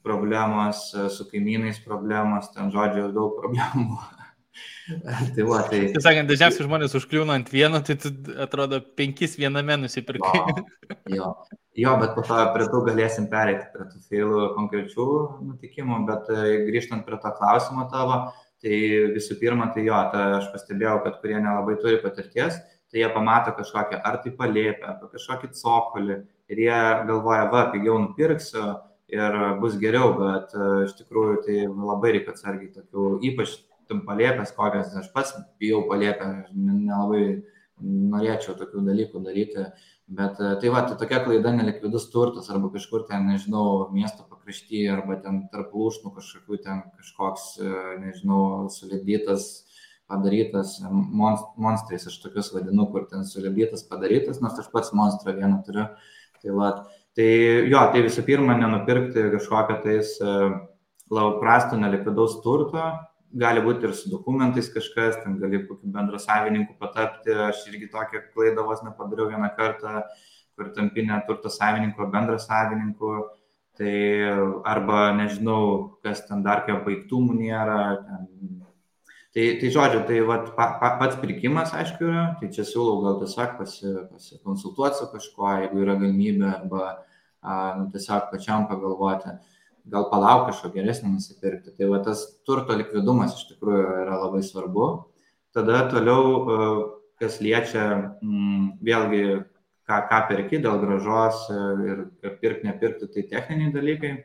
problemos su kaimynais problemos, ten žodžiu daug problemų. Tai sakant, dažniausiai žmonės užkliūna ant vieno, tai tu atrodo 5 viename nusipirkai. Jo, bet po to prie tų galėsim pereiti prie tų feilų konkrečių nutikimų, bet grįžtant prie to klausimo tavo, tai visų pirma, tai aš pastebėjau, kad kurie nelabai turi patirties, tai jie pamato kažkokią ar tai palėpę, ar kažkokį cokolį ir jie galvoja, pigiau nupirksiu ir bus geriau, bet iš tikrųjų tai labai reikia atsargiai tokių, ypač palėpės kokias, aš pats bijau palėpę, nelabai norėčiau tokių dalykų daryti, bet tai tokia klaida nelikvidus turtas arba kažkur ten, nežinau, miesto pakraštyje arba ten tarp lūšnų kažkokių ten kažkoks, nežinau, sulipdytas, padarytas monstrais, aš tokius vadinu, kur ten sulipdytas, padarytas, nors aš pats monstrą vieną turiu. Tai Tai jo, tai visų pirma, nenupirkti kažkokią tais labai prastų nelikvidaus turto, gali būti ir su dokumentais kažkas, ten gali kokiu bendra savininku patapti, aš irgi tokią klaidą vos nepadariau vieną kartą, kur tampinė turto savininko bendra savininku, tai arba nežinau, kas ten dar kaip baigtumų nėra, ten. Tai žodžiu, tai vat, pats pirkimas, aišku, yra, tai čia siūlau gal tiesiog pasikonsultuoti su kažkuo, jeigu yra galimybė, arba tiesiog pačiam pagalvoti, gal palauk kažko geresnį nusipirkti. Tai va tas turto likvidumas iš tikrųjų yra labai svarbu. Tada toliau, kas liečia vėlgi, ką perki dėl gražos ir pirkti, nepirkti, tai techniniai dalykai.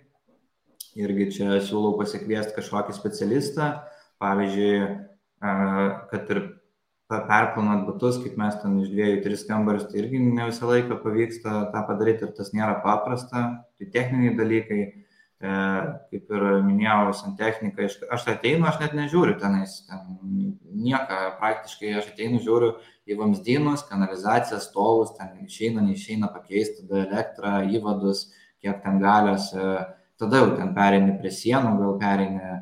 Irgi čia siūlau pasikviesti kažkokį specialistą. Pavyzdžiui, kad ir perplanuot butus, kaip mes ten iš 2-3 kambarius, tai irgi ne visą laiką pavyksta tą padaryti ir tas nėra paprasta. Tai techniniai dalykai, kaip ir minėjau, santechnika, aš ateinu, aš net nežiūriu tenais, nieką praktiškai, aš ateinu, žiūriu į vamzdynus, kanalizaciją, stovus, ten neišeina pakeisti, tada elektrą, įvadus, kiek ten galios, tada jau ten pereini prie sienų, gal pereini.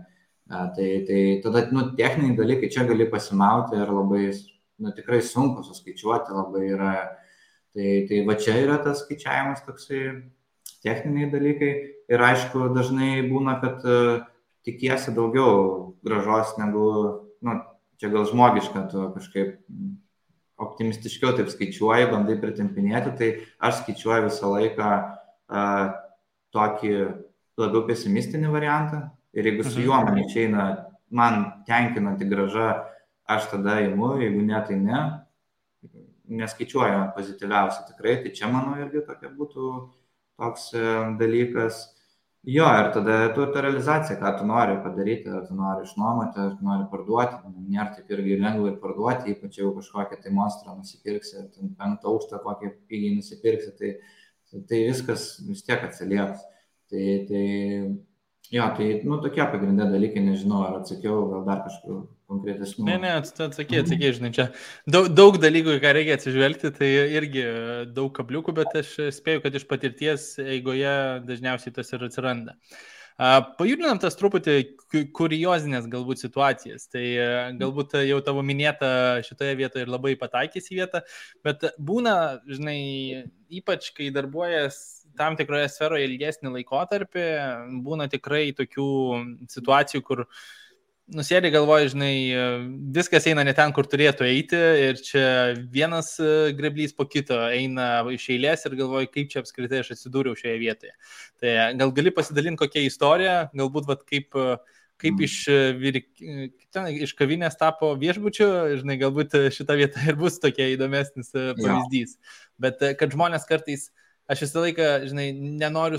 Tai tada techniniai dalykai čia gali pasimauti ir labai tikrai sunku suskaičiuoti labai yra. Tai va čia yra tas skaičiavimas toksai techniniai dalykai ir aišku dažnai būna, kad tikiesi daugiau gražos negu, čia gal žmogiška, tu kažkaip optimistiškiau taip skaičiuoji, bandai pritempinėti, tai aš skaičiuoju visą laiką tokį labiau pesimistinį variantą. Ir jeigu su juo man išeina, man tenkinanti graža, aš tada imu, jeigu ne, tai ne. Neskaičiuoju pozityviausiai tikrai, tai čia mano irgi tokia būtų toks dalykas. Jo, ir tada ta realizacija, ką tu nori padaryti, ar tu nori išnuomoti, ar tu nori parduoti, nėra taip irgi lengvai parduoti, ypač jau kažkokią tai monstrą nusipirksi, ar 5 aukštą kokį pigiai nusipirksi, tai viskas vis tiek atsilieps. Jo, tai tokie pagrindė dalykai, nežinau, ar atsakiau, gal dar kažkokių konkretesnių. Ne, atsakė, žinai, čia daug dalykų, ką reikia atsižvelgti, tai irgi daug kabliukų, bet aš spėju, kad iš patirties eigoje dažniausiai tas ir atsiranda. Pajudinam tas truputį kuriozinės galbūt situacijas, tai galbūt jau tavo minėta šitoje vietoje ir labai pataikys į vietą, bet būna, žinai, ypač kai darbuojas tam tikroje sferoje ilgesnį laikotarpį, būna tikrai tokių situacijų, kur nusėdė galvoji, žinai, viskas eina ne ten, kur turėtų eiti ir čia vienas greblys po kito eina iš eilės ir galvoji, kaip čia apskritai aš atsidūriau šioje vietoje. Tai gal gali pasidalinti kokią istoriją, galbūt kaip iš kavinės tapo viešbučiu, žinai, galbūt šita vieta ir bus tokia įdomesnis pavyzdys. Bet kad žmonės kartais, aš visą laiką, žinai, nenoriu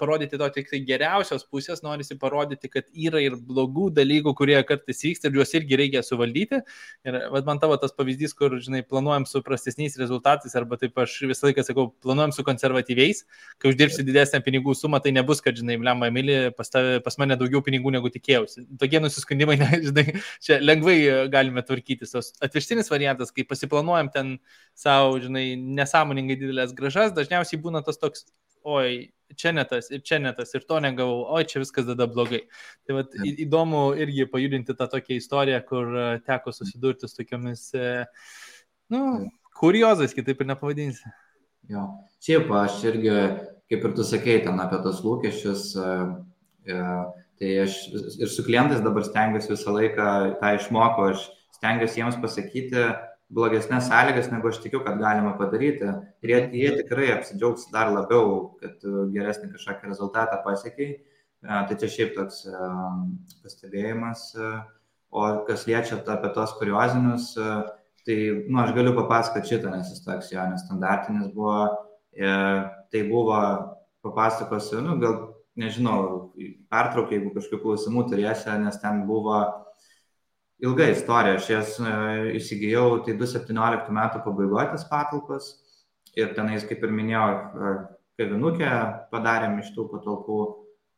parodyti to tik tai geriausios pusės, norisi parodyti, kad yra ir blogų dalykų, kurie kartais vyksta ir juos irgi reikia suvaldyti. Ir man tavo tas pavyzdys, kur, žinai, planuojam su prastesniais rezultatais, arba taip aš visą laiką sakau, planuojam su konservatyviais, kai uždirbsi didesnę pinigų sumą, tai nebus, kad, žinai, blemba, Emilį, pas mane daugiau pinigų negu tikėjausi. Tokie nusiskundimai, žinai, čia lengvai galime tvarkytis. Atvirkštinis variantas, kai pasiplanuojam ten savo, žinai, nesąmoningai didelės gražas, dažniausiai būna tas toks, oi, čia ne tas, ir to negavau, oi, čia viskas tada blogai. Tai vat, įdomu irgi pajudinti tą tokią istoriją, kur teko susidurti su tokiomis, kuriozais, kitaip ir nepavadinsi. Jo, šiaip aš irgi, kaip ir tu sakei, ten apie tos lūkesčius, tai aš ir su klientais dabar stengiuosi visą laiką tą išmokau, aš stengiuosi jiems pasakyti blogesnės sąlygas, negu aš tikiu, kad galima padaryti. Ir jie tikrai apsidžiaugs dar labiau, kad geresnį kažkokį rezultatą pasiekiai. Tai čia šiaip toks pastebėjimas. O kas liečia apie tos kuriozinius, tai aš galiu papasakoti šitą, nes jis toks jo nestandartinis buvo. Tai buvo, papasakosiu, gal nežinau, pertraukia, jeigu kažkokių klausimų turėsi, nes ten buvo ilga istorija, aš jas įsigijau, tai 2017 metų pabaigoje tas patalpas ir tenais, kaip ir minėjau, kavinukę padarėm iš tų patalpų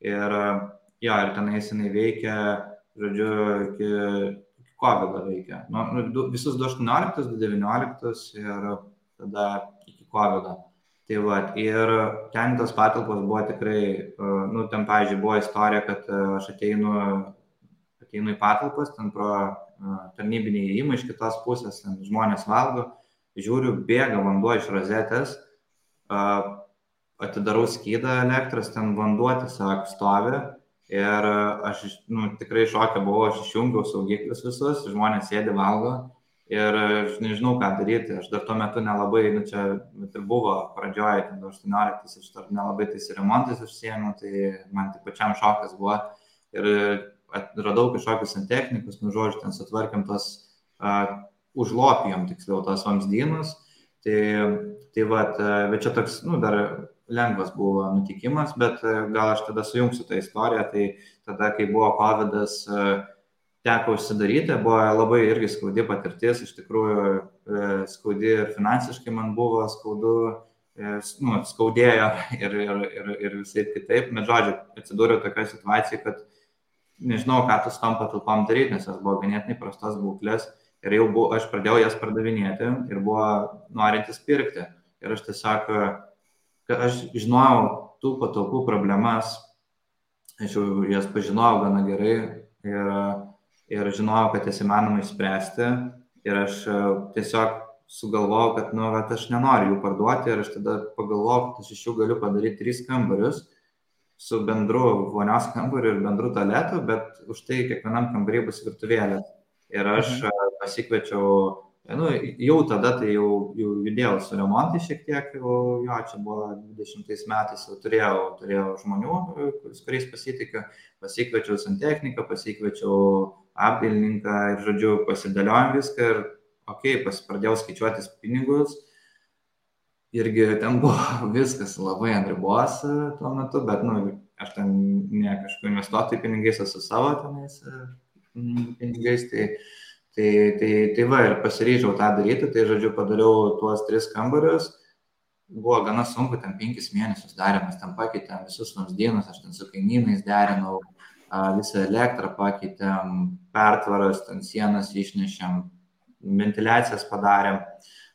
ir tenais jinai veikia, žodžiu, iki COVID veikia. Visus 2018, 2019 ir tada iki COVID. Tai va, ir ten tos patalpos buvo tikrai, nu, ten, pavyzdžiui, buvo istorija, kad aš ateinu į patalpas, ten pro tarnybinį įėjimą iš kitos pusės, ten žmonės valgo, žiūriu, bėga vanduo iš rozetės, atidarau skydą elektros, ten vanduo tiesiog stovi ir aš tikrai šoke buvau, aš išjungiau saugiklius visus, žmonės sėdi valgo ir aš nežinau, ką daryti, aš dar tuo metu nelabai, čia ir buvo pradžioje, 18, aš dar nelabai tais remontais užsiėmiau, tai man tik pačiam šokas buvo ir radau kažkokius santechnikus, žodžiu, ten sutvarkėm tos, užlopijom tiksliau tos vamzdynus, tai vat, bet čia toks, dar lengvas buvo nutikimas, bet gal aš tada sujungsiu tą istoriją, tai tada, kai buvo COVID-as, teko užsidaryti, buvo labai irgi skaudi patirtis, iš tikrųjų skaudi ir finansiškai man buvo skaudu, skaudėjo ir visai kitaip, bet žodžiu, atsidūriau tokioje situacijoje, kad nežinau, ką tu su tom patalpom daryti, nes jos buvo ganėtinai prastos būklės ir jau aš pradėjau jas pardavinėti ir buvo norintis pirkti. Ir aš tiesiog, kad aš žinojau tų patalpų problemas, aš jau jas pažinojau gana gerai ir žinojau, kad jas įmanoma išspręsti ir aš tiesiog sugalvojau, kad aš nenoriu jų parduoti ir aš tada pagalvojau, kad aš iš jų galiu padaryti 3 kambarius su bendru vonios kambariu ir bendru tualetu, bet už tai kiekvienam kambarį bus virtuvėlė. Ir aš pasikviečiau, jau tada tai jau judėjau su remontai šiek tiek, čia buvo 20 metais, jau turėjau žmonių, kuriais pasitikiu, pasikviečiau santechniką, pasikviečiau apdailininką ir, žodžiu, pasidėliojom viską ir, pradėjau skaičiuotis pinigus. Irgi ten buvo viskas labai ant ribos tuo metu, bet, aš ten ne kažkur investuotojų pinigais, esu savo tenais pinigais, tai va, ir pasiryžau tą daryti, tai, žodžiu, padariau tuos 3 kambarius, buvo gana sunku, ten 5 mėnesius darėmės, ten pakeitėm visus vamzdynus, aš ten su kaimynais derinau, visą elektrą pakeitėm, pertvaras, ten sienas išnešėm, ventiliacijas padarėm,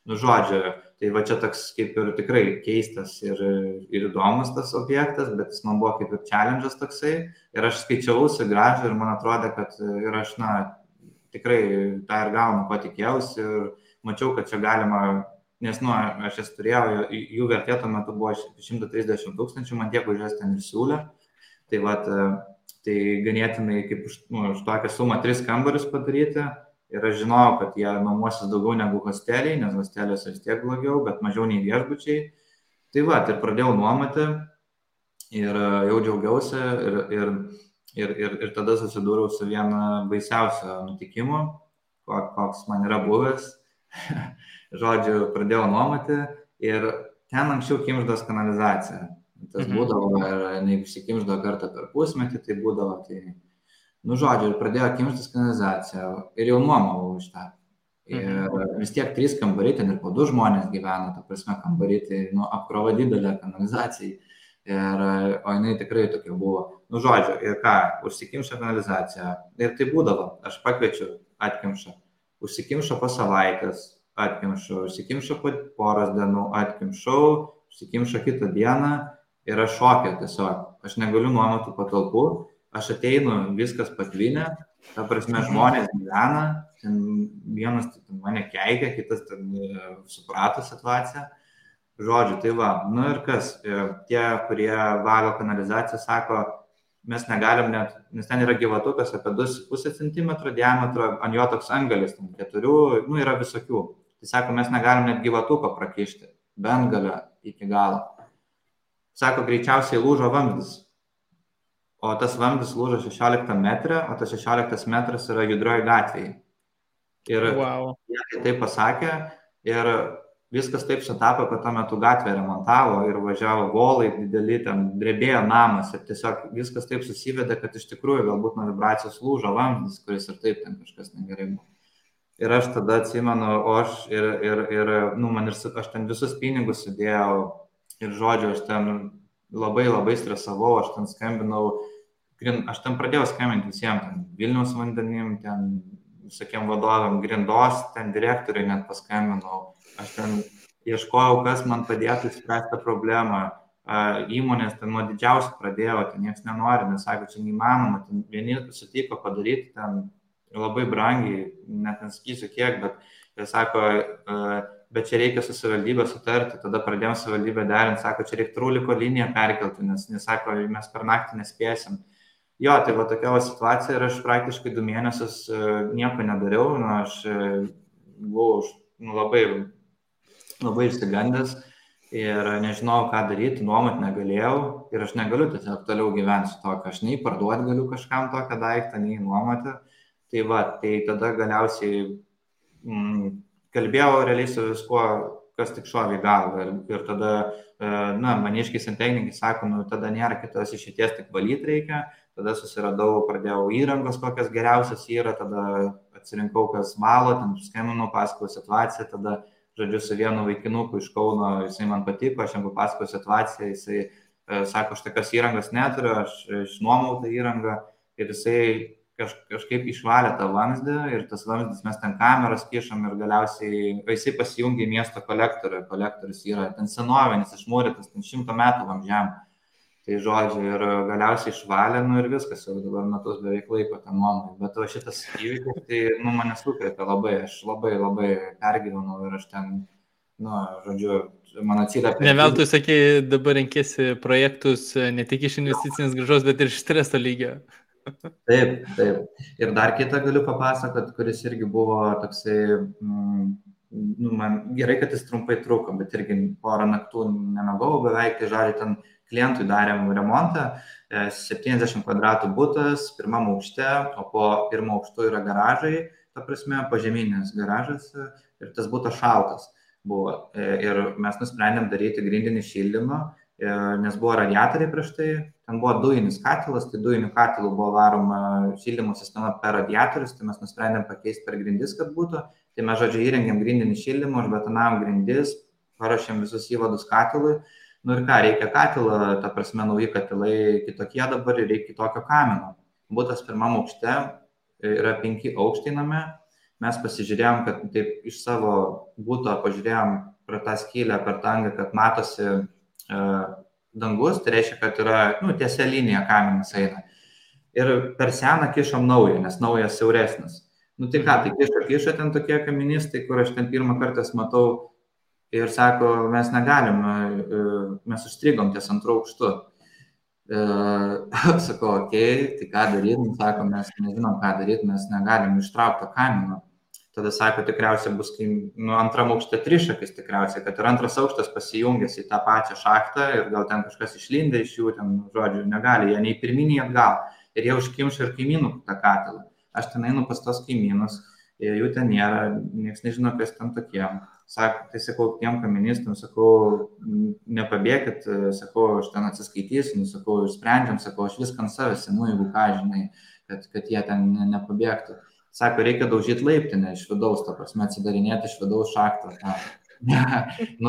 žodžiu, tai va čia toks kaip ir tikrai keistas ir įdomus tas objektas, bet jis man buvo kaip ir challenge'as toksai ir aš skaičiausi gražą ir man atrodė, kad ir aš, tikrai tą ir gaunu, ko tikėjausi ir mačiau, kad čia galima, nes, aš jas turėjau, jų vertė tuo metu buvo 130 000, man tiek už jas ten ir siūlė, tai va, tai ganėtinai kaip už tokią sumą 3 kambarius padaryti. Ir aš žinojau, kad jie nuomosis daugiau negu hosteliai, nes hosteliuose vis tiek blogiau, bet mažiau nei viešbučiai. Tai va, ir pradėjau nuomoti ir jau džiaugiausi ir tada susidūriau su viena baisiausio nutikimu, koks man yra buvęs. Žodžiu, pradėjau nuomoti ir ten anksčiau kimždos kanalizacija. Tas būdavo ir neįsikimždo kartą per pusmetį, tai būdavo tai... žodžiu, ir pradėjo kimštis kanalizacija ir jau nuomavau iš tą. Ir vis tiek 3 kambariai, ten ir po 2 žmonės gyveno, ta prasme kambariai, tai apkrova didelė kanalizacijai. O jinai tikrai tokia buvo. Žodžiu, ir ką, užsikimšo kanalizacija. Ir tai būdavo, aš pakviečiu, atkimšo. Užsikimšo po savaitės, atkimšo. Užsikimšo po poros dienų, atkimšau. Užsikimšo kitą dieną ir aš šokė tiesiog. Aš negaliu nuomoti patalpų. Aš ateinu, viskas patvinę, ta prasme žmonės gyvena, ten vienas mane keikia, kitas ten suprato situaciją. Žodžiu, tai va, ir kas, tie, kurie valo kanalizaciją, sako, mes negalim net, nes ten yra gyvatukas apie 2,5 cm diametro, ant jo toks angalis, 4, yra visokių. Tai sako, mes negalim net gyvatuko prakišti, bent galio iki galo. Sako, greičiausiai lūžo vamzdis. O tas vamzdis lūžo 16 metrą, o tas 16 metras yra Judrioj gatvėje. Ir jie taip pasakė ir viskas taip sutapo, kad tuo metu gatvę remontavo ir važiavo volai dideli, ten drebėjo namas ir tiesiog viskas taip susivedė, kad iš tikrųjų galbūt nuo vibracijos lūžo vamzdis, kuris ir taip ten kažkas negerai buvo. Ir aš tada atsimenu, aš ten visus pinigus sudėjau ir, žodžiu, aš ten labai stresavau, aš ten skambinau, aš ten pradėjau skambinti visiems, ten Vilniaus vandenim, ten visokiem vadovam, Grindos, ten direktoriui net paskambinau, aš ten ieškojau, kas man padėtų spręsti tą problemą. Įmonės ten nuo didžiausių pradėjo, ten niekas nenori, nes sako, čia neįmanoma, ten vieni sutiko padaryti ten labai brangiai, net nesakysiu kiek, bet jie sako, bet čia reikia su savivaldybė sutarti, tada pradėjom savivaldybę derinti, sako, čia reikia truliko liniją perkelti, nes sako, mes per naktį nespėsim. Jo, tai va tokia situacija ir aš praktiškai 2 mėnesius nieko nedariau, aš buvau labai išsigandęs ir nežinau, ką daryti, nuomot negalėjau ir aš negaliu tiesiog toliau gyventi su to, aš nei parduoti galiu kažkam tokią daiktą, nei nuomoti. Tai va, tai tada galiausiai kalbėjau realiai su viskuo, kas tik šovė į galvą ir tada, maniškiai santechnikai sako, tada nėra kitos išeities, tik valyti reikia, tada susiradau, pradėjau įrangos, kokias geriausias yra, tada atsirinkau, kas valo, ten skambinau, pasakojau situaciją, tada žodžiu, su vienu vaikinuku iš Kauno, jisai man patiko, aš jam papasakojau situaciją, jisai sako, aš tokios įrangos neturiu, aš išnuomau tą įrangą ir jisai kažkaip išvalė tą vamzdį ir tas vamzdis mes ten kameras kišam ir galiausiai jisai pasijungė į miesto kolektorių, kolektorius yra ten senovinis, išmūrytas, ten 100 metų vamzdžiam. Tai žodžiu, ir galiausiai išvalė, ir viskas, jau dabar metus beveik laiko tą nuomą. Bet šitas įvykis, tai, mane sukrėtė labai, aš labai pergyvenau ir aš ten, žodžiu, man atsiliepė. Ne veltui sakė, dabar renkėsi projektus ne tik iš investicinės grąžos, bet ir iš streso lygio. Taip. Ir dar kitą galiu papasakot, kuris irgi buvo toksai, man gerai, kad jis trumpai truko, bet irgi porą naktų nemegau beveik, tai žodžiu, ten klientui darėm remontą, 70 kvadratų butas, pirmam aukšte, o po pirmo aukštu yra garažai, ta prasme, pažeminės garažas ir tas butas šaltas buvo. Ir mes nusprendėm daryti grindinį šildymą, nes buvo radiatoriai prieš tai, ten buvo dujinis katilas, tai dujinių katilų buvo varoma šildymo sistema per radiatorius, tai mes nusprendėm pakeisti per grindis, kad būtų. Tai mes, žodžiu, įrengėm grindinį šildymą, užbetonavom grindis, paruošėm visus įvadus katilui. Ir ką, reikia katilą, ta prasme, nauji katilai kitokie dabar ir reikia kitokio kamino. Butas pirmam aukšte, yra 5 aukštai name, mes pasižiūrėjom, kad taip iš savo buto pažiūrėjom pro tą skylę, per tangą, kad matosi dangus, tai reiškia, kad yra, tiesia linija kaminas eina. Ir per seną kišom naują, nes naujas siauresnis. Tai ką, tai kišo ten tokie kaministai, kur aš ten pirmą kartą matau ir sako, mes negalim, mes užstrigom ties 2 aukštu. Sakau, okei, tai ką daryti, sako, mes nežinom, ką daryti, mes negalim ištraukti to kamino. Tada sako, tikriausiai bus, antram aukšte trišakis tikriausiai, kad ir antras aukštas pasijungęs į tą pačią šachtą ir gal ten kažkas išlindė iš jų, ten, žodžiu, negali, jie nei pirminiai atgal. Ir jie užkimšo ir kaimynų tą katilą. Aš ten einu pas tos kaimynus, jų ten nėra, niekas nežino, kas ten tokie. Tai sakau, tiem kaministam, sakau, nepabėkit, sakau, aš ten atsiskaitysiu, sakau, išsprendžiam, sakau, aš viską ant savęs, jeigu ką, žinai, kad jie ten nepabėgtų. Sako, reikia daužyti laiptinę iš vidaus, ta prasme, atsidarinėti iš vidaus šachtą.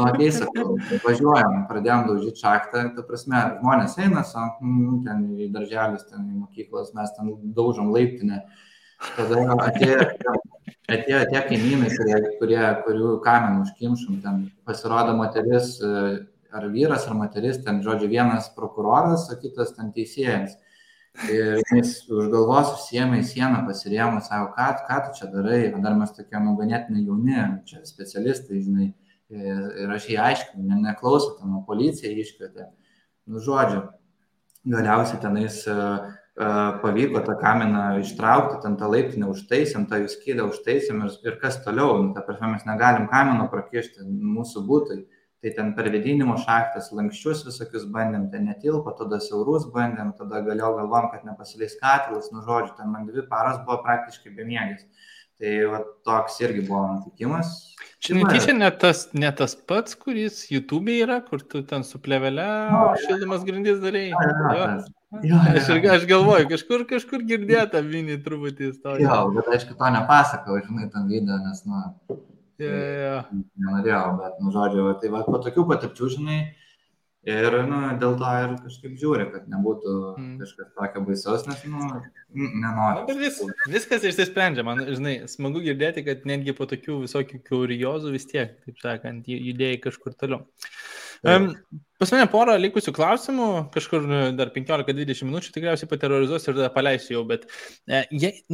Okei, sakau, važiuojam, pradėjom daužyti šachtą, ta prasme, žmonės eina, ten į darželis, ten į mokyklas, mes ten daužom laiptinę. Tada atėjo tie kaimynai, kurių kaminų užkimšom, ten pasirodo moteris, ar vyras, ar moteris, ten, žodžiu, vienas prokuroras, o kitas ten teisėjas. Ir jis už galvos užsiėmė į sieną, pasirėmė, sako, ką tu čia darai, dar mes tokie ganėtinai jauni, čia specialistai, žinai, ir aš jį aiškinu, neklausau, ten policija iškvietė. Žodžiu, galiausiai tenais pavyko tą kaminą ištraukti, ten tą laiptinę užtaisėm, tą jų skylę užtaisėm ir kas toliau, ta prasme, mes negalim kamino prakišti mūsų būtui. Tai ten per vėdinimo šachtas, lankščius visokius bandėm, ten netilpo, tada siaurus bandėm, tada galvom, kad nepasileis katilas, žodžiu, ten man 2 paras buvo praktiškai bemiegis. Tai toks irgi buvo nutikimas. Čia netyčia ne tas pats, kuris YouTube'e yra, kur tu ten su plėvele šildymas grindis darai. Aš galvoju, kažkur girdėta mini truputį istoriją. Jo, bet aišku, to nepasakau, žinai, tam video, nes, nenorėjau, bet, žodžiu, tai po tokių patirčių, žinai, Ir dėl to ir kažkaip žiūri, kad nebūtų kažkas tokio baisaus, nes nenoriu. Viskas išsisprendžia, man, žinai, smagu girdėti, kad netgi po tokių visokių kuriozų vis tiek, taip sakant, judėjai kažkur toliau. Pas mane porą likusių klausimų, kažkur dar 15-20 minučių tikriausiai paterrorizuos ir tada paleisiu jau, bet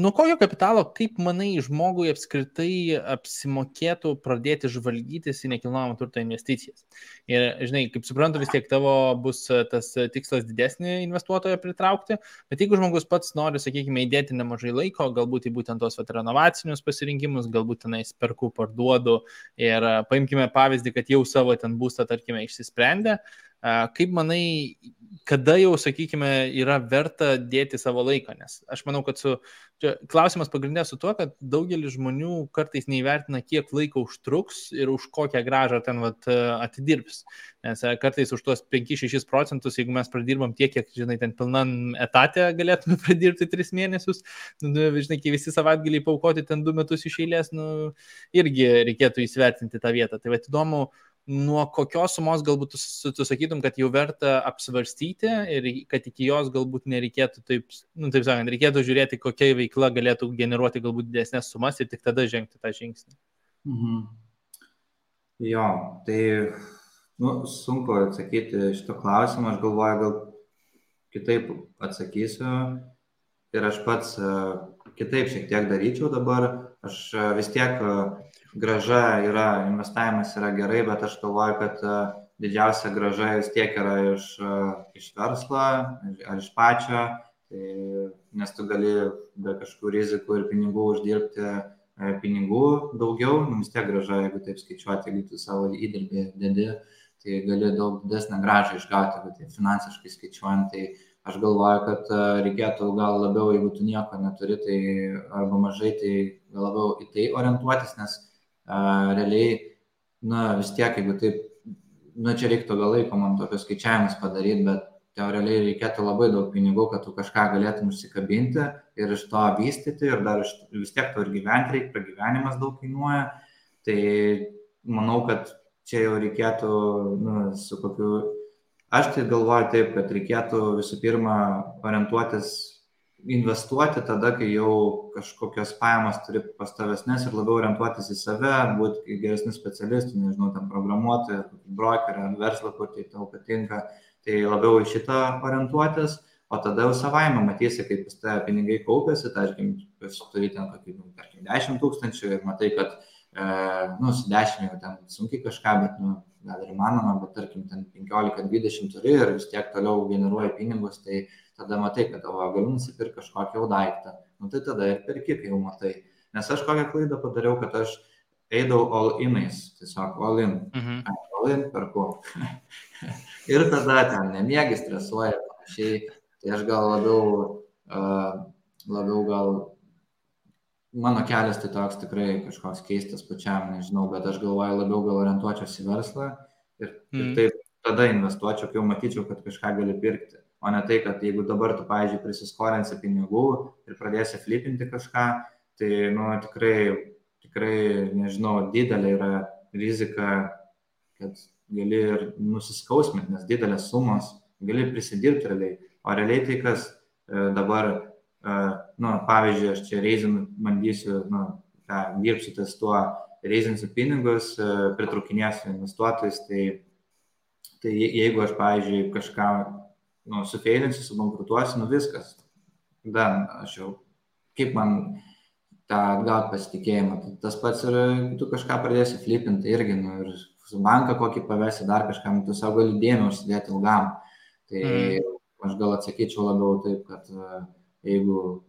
nuo kokio kapitalo, kaip manai, žmogui apskritai apsimokėtų pradėti žvalgytis į nekilnojamo turto investicijas? Ir, žinai, kaip suprantu, vis tiek tavo bus tas tikslas didesnį investuotoją pritraukti, bet jeigu žmogus pats nori, sakykime, įdėti nemažai laiko, galbūt į būtent tos renovacinius pasirinkimus, galbūt tenais perku, parduodu ir paimkime pavyzdį, kad jau savo ten būstą, tarkime, išsisprendė. Kaip manai, kada jau, sakykime, yra verta dėti savo laiką? Nes aš manau, kad klausimas pagrindė su tuo, kad daugelis žmonių kartais neįvertina, kiek laiko užtruks ir už kokią grąžą ten atidirbs. Nes kartais už tuos 5-6%, jeigu mes pradirbam tiek, kiek, žinai, ten pilnam etatę galėtume pradirbti 3 mėnesius, žinai, kai visi savaitgaliai paaukoti ten 2 metus iš eilės, irgi reikėtų įsivertinti tą vietą. Tai įdomu, nuo kokios sumos galbūt tu sakytum, kad jau verta apsvarstyti ir kad iki jos galbūt nereikėtų taip sakant, reikėtų žiūrėti, kokia veikla galėtų generuoti galbūt didesnės sumas ir tik tada žengti tą žingsnį. Jo, tai sunku atsakyti šito klausimą, aš galvoju, gal kitaip atsakysiu ir aš pats kitaip šiek tiek daryčiau dabar, aš vis tiek graža yra, investavimas yra gerai, bet aš galvoju, kad didžiausia graža vis tiek yra iš verslo ar iš pačio, nes tu gali be kažkokių rizikų ir pinigų uždirbti pinigų daugiau, vis tiek graža, jeigu taip skaičiuoti, jeigu tu savo įdirbį dedi, tai gali daug didesnę gražą išgauti, bet tai finansiškai skaičiuojant, tai aš galvoju, kad reikėtų gal labiau, jeigu tu nieko neturi, tai arba mažai, tai gal labiau į tai orientuotis, nes realiai, vis tiek, jeigu taip, čia reiktų gal laiko man tokius skaičiavimus padaryti, bet realiai reikėtų labai daug pinigų, kad tu kažką galėtum užsikabinti ir iš to vystyti ir dar vis tiek to ir gyventi reikia, pragyvenimas daug kainuoja, tai manau, kad čia jau reikėtų, su kokiu, aš tai galvoju taip, kad reikėtų visų pirma orientuotis investuoti tada, kai jau kažkokios pajamos turi pastovesnės ir labiau orientuotis į save, būti geresnių specialistų, nežinau, tam programuotojų, brokerį ar verslą, kur tai tau patinka, tai labiau į šitą orientuotis, o tada jau savaime matysi, kaip pas tave pinigai kaupiasi, tarkim, turi ten kokį, 10 000 ir matai, kad su 10 jau ten sunkiai kažką, bet gal ir įmanoma, bet tarkim, ten 15-20 turi ir vis tiek toliau generuoja pinigus, tai tada matai, kad galiu nusipirkti kažkokį jau daiktą. Tai tada ir perki, kai jau matai. Nes aš kokią klaidą padariau, kad aš eidavau all-inais, tiesiog all-in. All-in perku. Ir tada ten nemiegi, stresuoja ir panašiai. Tai aš gal labiau gal mano kelias tai toks tikrai kažkoks keistas pačiam, nežinau, bet aš galvoju labiau gal orientuočiausi į verslą ir taip tada investuočiau, kai jau matyčiau, kad kažką gali pirkti. O ne tai, kad jeigu dabar tu, pavyzdžiui, prisiskolinsi pinigų ir pradėsi flipinti kažką, tai, tikrai, nežinau, didelė yra rizika, kad gali ir nusiskausminti, nes didelės sumos gali prisidirbti realiai. O realiai tai, kas dabar, pavyzdžiui, aš čia reizinu, bandysiu, dirbsiu ties tuo, reizinsiu pinigus, pritraukinėsiu investuotojus, tai jeigu aš, pavyzdžiui, kažką sufeilinsiu, subankrutuosiu, viskas. Aš jau, kaip man tą atgauti pasitikėjimą. Tas pats ir tu kažką pradėsi flipinti irgi, ir su banką kokį pavesi dar kažkam, tu savo gali dėmę užsidėti ilgam. Tai aš gal atsakyčiau labiau taip, kad jeigu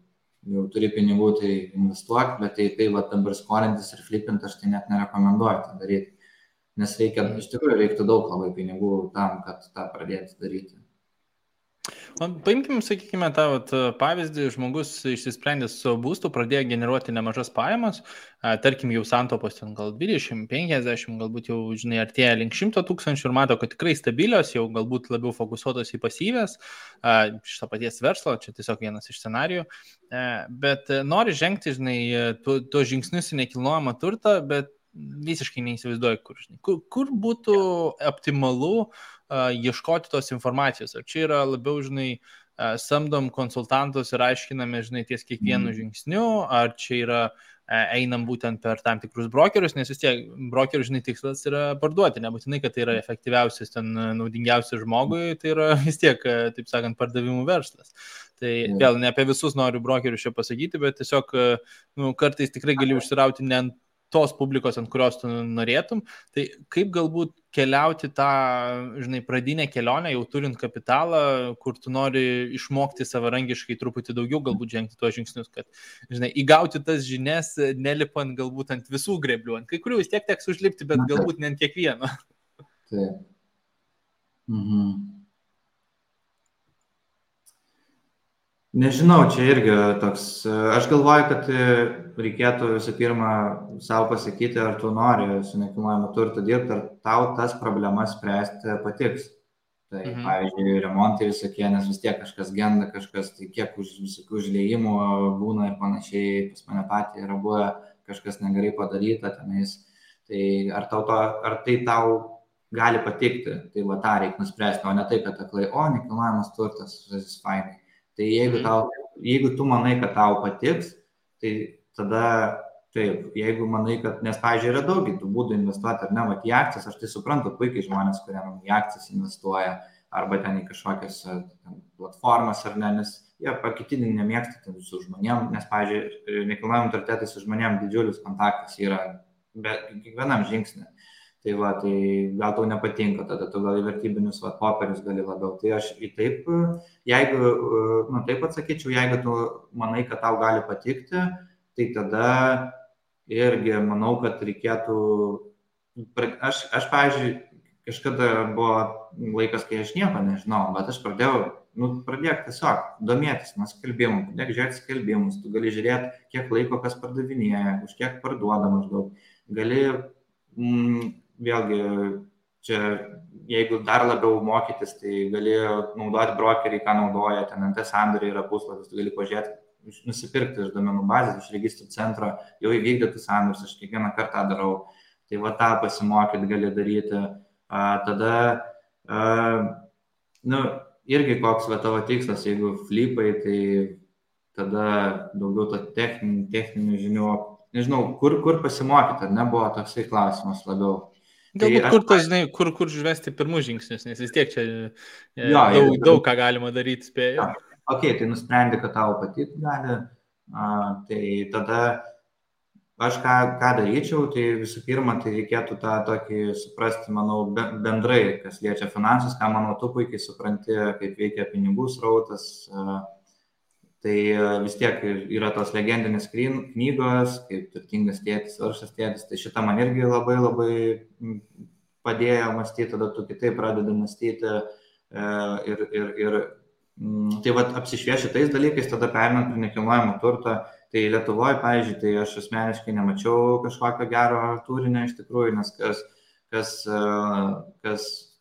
jau turi pinigų, tai investuok, bet tai dabar skolintis ir flipinti aš tai net nerekomenduoju tą daryti. Nes iš tikrųjų reiktų daug labai pinigų tam, kad tą pradėti daryti. Paimkime, sakykime, tą pavyzdį, žmogus išsisprendė su būstu, pradėjo generuoti nemažas pajamas, tarkim jau santaupos ten gal 20-50, galbūt jau, žinai, artėja link 100 000 ir mato, kad tikrai stabilios, jau galbūt labiau fokusuotos į pasyvės, iš to paties verslo, čia tiesiog vienas iš scenarijų, bet nori žengti, žinai, tuos žingsnius į nekilnojamą turtą, bet visiškai neįsivaizduoju, kur būtų optimalu ieškoti tos informacijos. Ar čia yra labiau, žinai, samdom konsultantus ir aiškiname, žinai, ties kiekvienu žingsniu, ar čia yra einam būtent per tam tikrus brokerius, nes vis tiek brokerių, žinai, tikslas yra parduoti, nebūtinai, kad tai yra efektyviausias, ten naudingiausias žmogui, tai yra vis tiek, taip sakant, pardavimų verslas. Tai vėl ne apie visus noriu brokerius čia pasakyti, bet tiesiog kartais tikrai gali užsirauti ne ant tos publikos, ant kurios tu norėtum. Tai kaip galbūt keliauti tą, žinai, pradinę kelionę, jau turint kapitalą, kur tu nori išmokti savarankiškai truputį daugiau, galbūt žengti tuos žingsnius, kad, žinai, įgauti tas žinias, nelipant galbūt ant visų greblių. Ant kai kurių vis tiek teks užlipti, bet galbūt ne ant kiekvieno. Taip. Nežinau, čia irgi toks, aš galvoju, kad reikėtų visų pirma savo pasakyti, ar tu nori su nekilnojamu turtu dirbti, ar tau tas problemas spręsti patiks. Tai, pavyzdžiui, remontai visokie, nes vis tiek kažkas genda, kažkas, tai kiek visokių užliejimų būna ir panašiai, pas mane patį yra buvę, kažkas negerai padaryta tenais. Tai ar tai tau gali patikti, tai va tą reikia nuspręsti, o ne tai, kad aklai, nekilnojamas turtas, visas fainai. Tai jeigu tu manai, kad tau patiks, tai tada taip, jeigu manai, kad, nes, pavyzdžiui, yra daug tų būdų investuoti ar ne, į akcijas, aš tai suprantu puikiai žmonės, kurie į akcijas investuoja, arba ten į kažkokias platformas ar ne, nes jie pakitinį nemėgsta su žmonėm, nes, pavyzdžiui, nekilnojamam turte tai su žmonėm didžiulis kontaktas yra kiekvienam žingsnį. Tai va, tai gal tau nepatinka, tada tu gal į vertybinius popierius gali labiau. Tai aš jeigu taip atsakyčiau, jeigu tu manai, kad tau gali patikti, tai tada irgi manau, kad reikėtų, aš pavyzdžiui, kažkada buvo laikas, kai aš nieko nežinau, bet aš pradėjau tiesiog domėtis nuo skelbimų, pradėk žiūrėti skelbimus, tu gali žiūrėti, kiek laiko kas pardavinėja, už kiek parduoda maždaug, gali vėlgi, čia, jeigu dar labiau mokytis, tai gali naudoti brokerį, ką naudoja, ten NT sandoriai yra puslapis, tu gali pažiūrėti, nusipirkti iš duomenų bazės, iš registrų centro, jau įvykdytus sandorius, aš kiekvieną kartą darau, tai va tą pasimokyti gali daryti. Tada, irgi koks va tavo tikslas, jeigu flipai, tai tada daugiau to techninių žinių, nežinau, kur pasimokyti, ar nebuvo toksai klausimas labiau. Galbūt kur žvesti pirmus žingsnius, nes vis tiek čia daug ką galima daryti, spėju. Ok, tai nusprendi, kad tau patikti gali, tai tada aš ką daryčiau, tai visų pirma, tai reikėtų tą tokį suprasti, manau, bendrai, kas liečia finansus, ką, manau, tu puikiai supranti, kaip veikia pinigų srautas. Tai vis tiek yra tos legendinės knygos, kaip Turtingas tėtis, Vargšas tėtis, tai šitą man irgi labai labai padėjo mąstyti, tada tu kitaip pradedi mąstyti ir tai vat apsišvieši tais dalykais, tada perinant prie nekilnojamo turto, tai Lietuvoje, pavyzdžiui, tai aš asmeniškai nemačiau kažkokio gero turinio iš tikrųjų, nes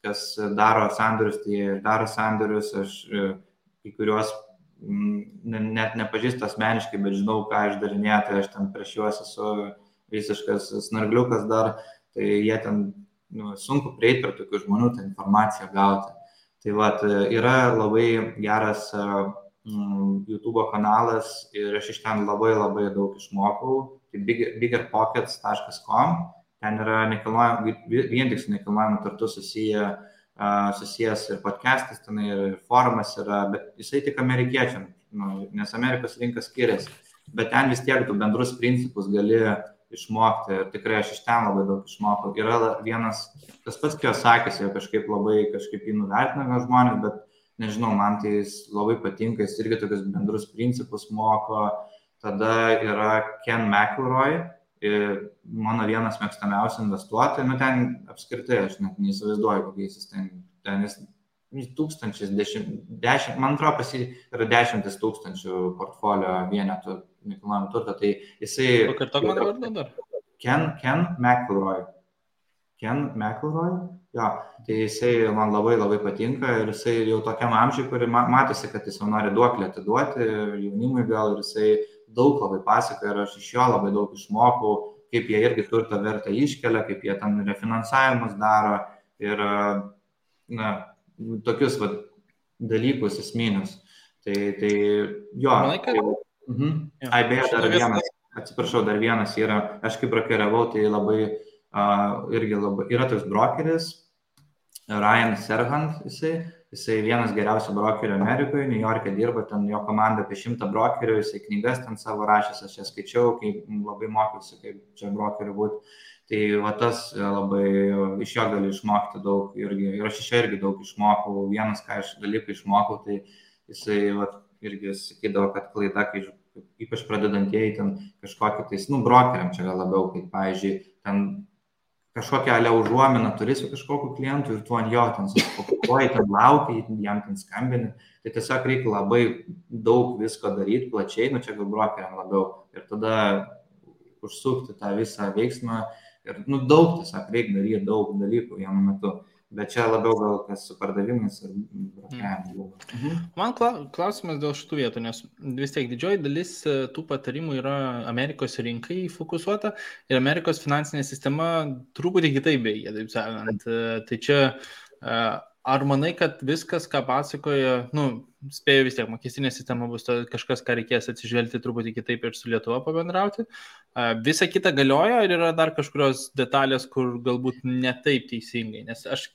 kas daro sandorius, tai daro sandorius, aš į kuriuos net nepažįstu asmeniškai, bet žinau, ką išdarinėja, tai aš ten prieš juos esu visiškas snargliukas dar, tai jie ten sunku prieiti prie tokių žmonių, tą informaciją gauti. Tai vat, yra labai geras YouTube kanalas ir aš iš ten labai labai daug išmokau, tai biggerpockets.com, ten yra vien tik su nekilnojamu turtu susijęs ir podcastas, ten ir forumas yra, bet jisai tik amerikiečiam, nes Amerikos rinka skiriasi, bet ten vis tiek tu bendrus principus gali išmokti ir tikrai aš iš ten labai daug išmokau. Yra vienas, tas pats Kiyosakis, jau kažkaip jį nuvertina gal žmonės, bet nežinau, man tai jis labai patinka, jis irgi tokius bendrus principus moko. Tada yra Ken McElroy, mano vienas mėgstamiausių investuotojų, ten apskritai aš net neįsivaizduoju, kokiais jis ten jis tūkstančiais, 10, man atrodo, pas jį yra 10 000 portfolio vienetų nekilnojamo turto, tai jisai... Pakartok man vardą dar. Ken McElroy. Jo, tai jisai man labai labai patinka ir jisai jau tokiam amžiui, kuri matosi, kad jis jau nori duoklę atiduoti jaunimui gal ir jisai daug labai pasakoja ir aš iš jo labai daug išmokau, kaip jie irgi turto vertę iškelia, kaip jie ten refinansavimus daro ir tokius dalykus esminius. Tai jo. Manai, kad... Beje, dar vienas, atsiprašau, dar vienas yra, aš kaip brokeriavau, tai irgi labai, yra toks brokeris, Ryan Serhant, jisai vienas geriausių brokerių Amerikoje, New York'e dirba, ten jo komanda apie 100 brokerių, jisai knygas ten savo rašęs, aš jas skaičiau, kai labai mokiausi, kaip čia brokerių būti. Tai tas labai iš jo gali išmokti daug ir aš iš jo irgi daug išmokau. Vienas, ką aš dalykų išmokau, tai jisai irgi sakydavo, kad klaida, kai ypač pradedantieji ten kažkokį tais, brokeriam čia gal labiau, kaip, pavyzdžiui, ten kažkokią užuominą turi su kažkokiu klientu ir tu ant jo ten susifokusuoji, ten laukia, jam ten skambini. Tai tiesiog reikia labai daug visko daryti, plačiai, čia gal brokeriam labiau. Ir tada užsukti tą visą veiksmą ir daug tiesiog reikia daryti, daug dalykų vienu metu. Bet čia labiau gal kas su pardavimais ir brokeriavimu. Man klausimas dėl šitų vietų, nes vis tiek didžioji dalis tų patarimų yra Amerikos rinkai fokusuota ir Amerikos finansinė sistema truputį kitaip veikia, taip sakant. Tai čia, ar manai, kad viskas, ką pasakoja, spėju vis tiek, mokestinė sistema bus kažkas, ką reikės atsižvelgti truputį kitaip ir su Lietuva pabendrauti. Visa kita galioja ir yra dar kažkurios detalės, kur galbūt ne taip teisingai. Nes aš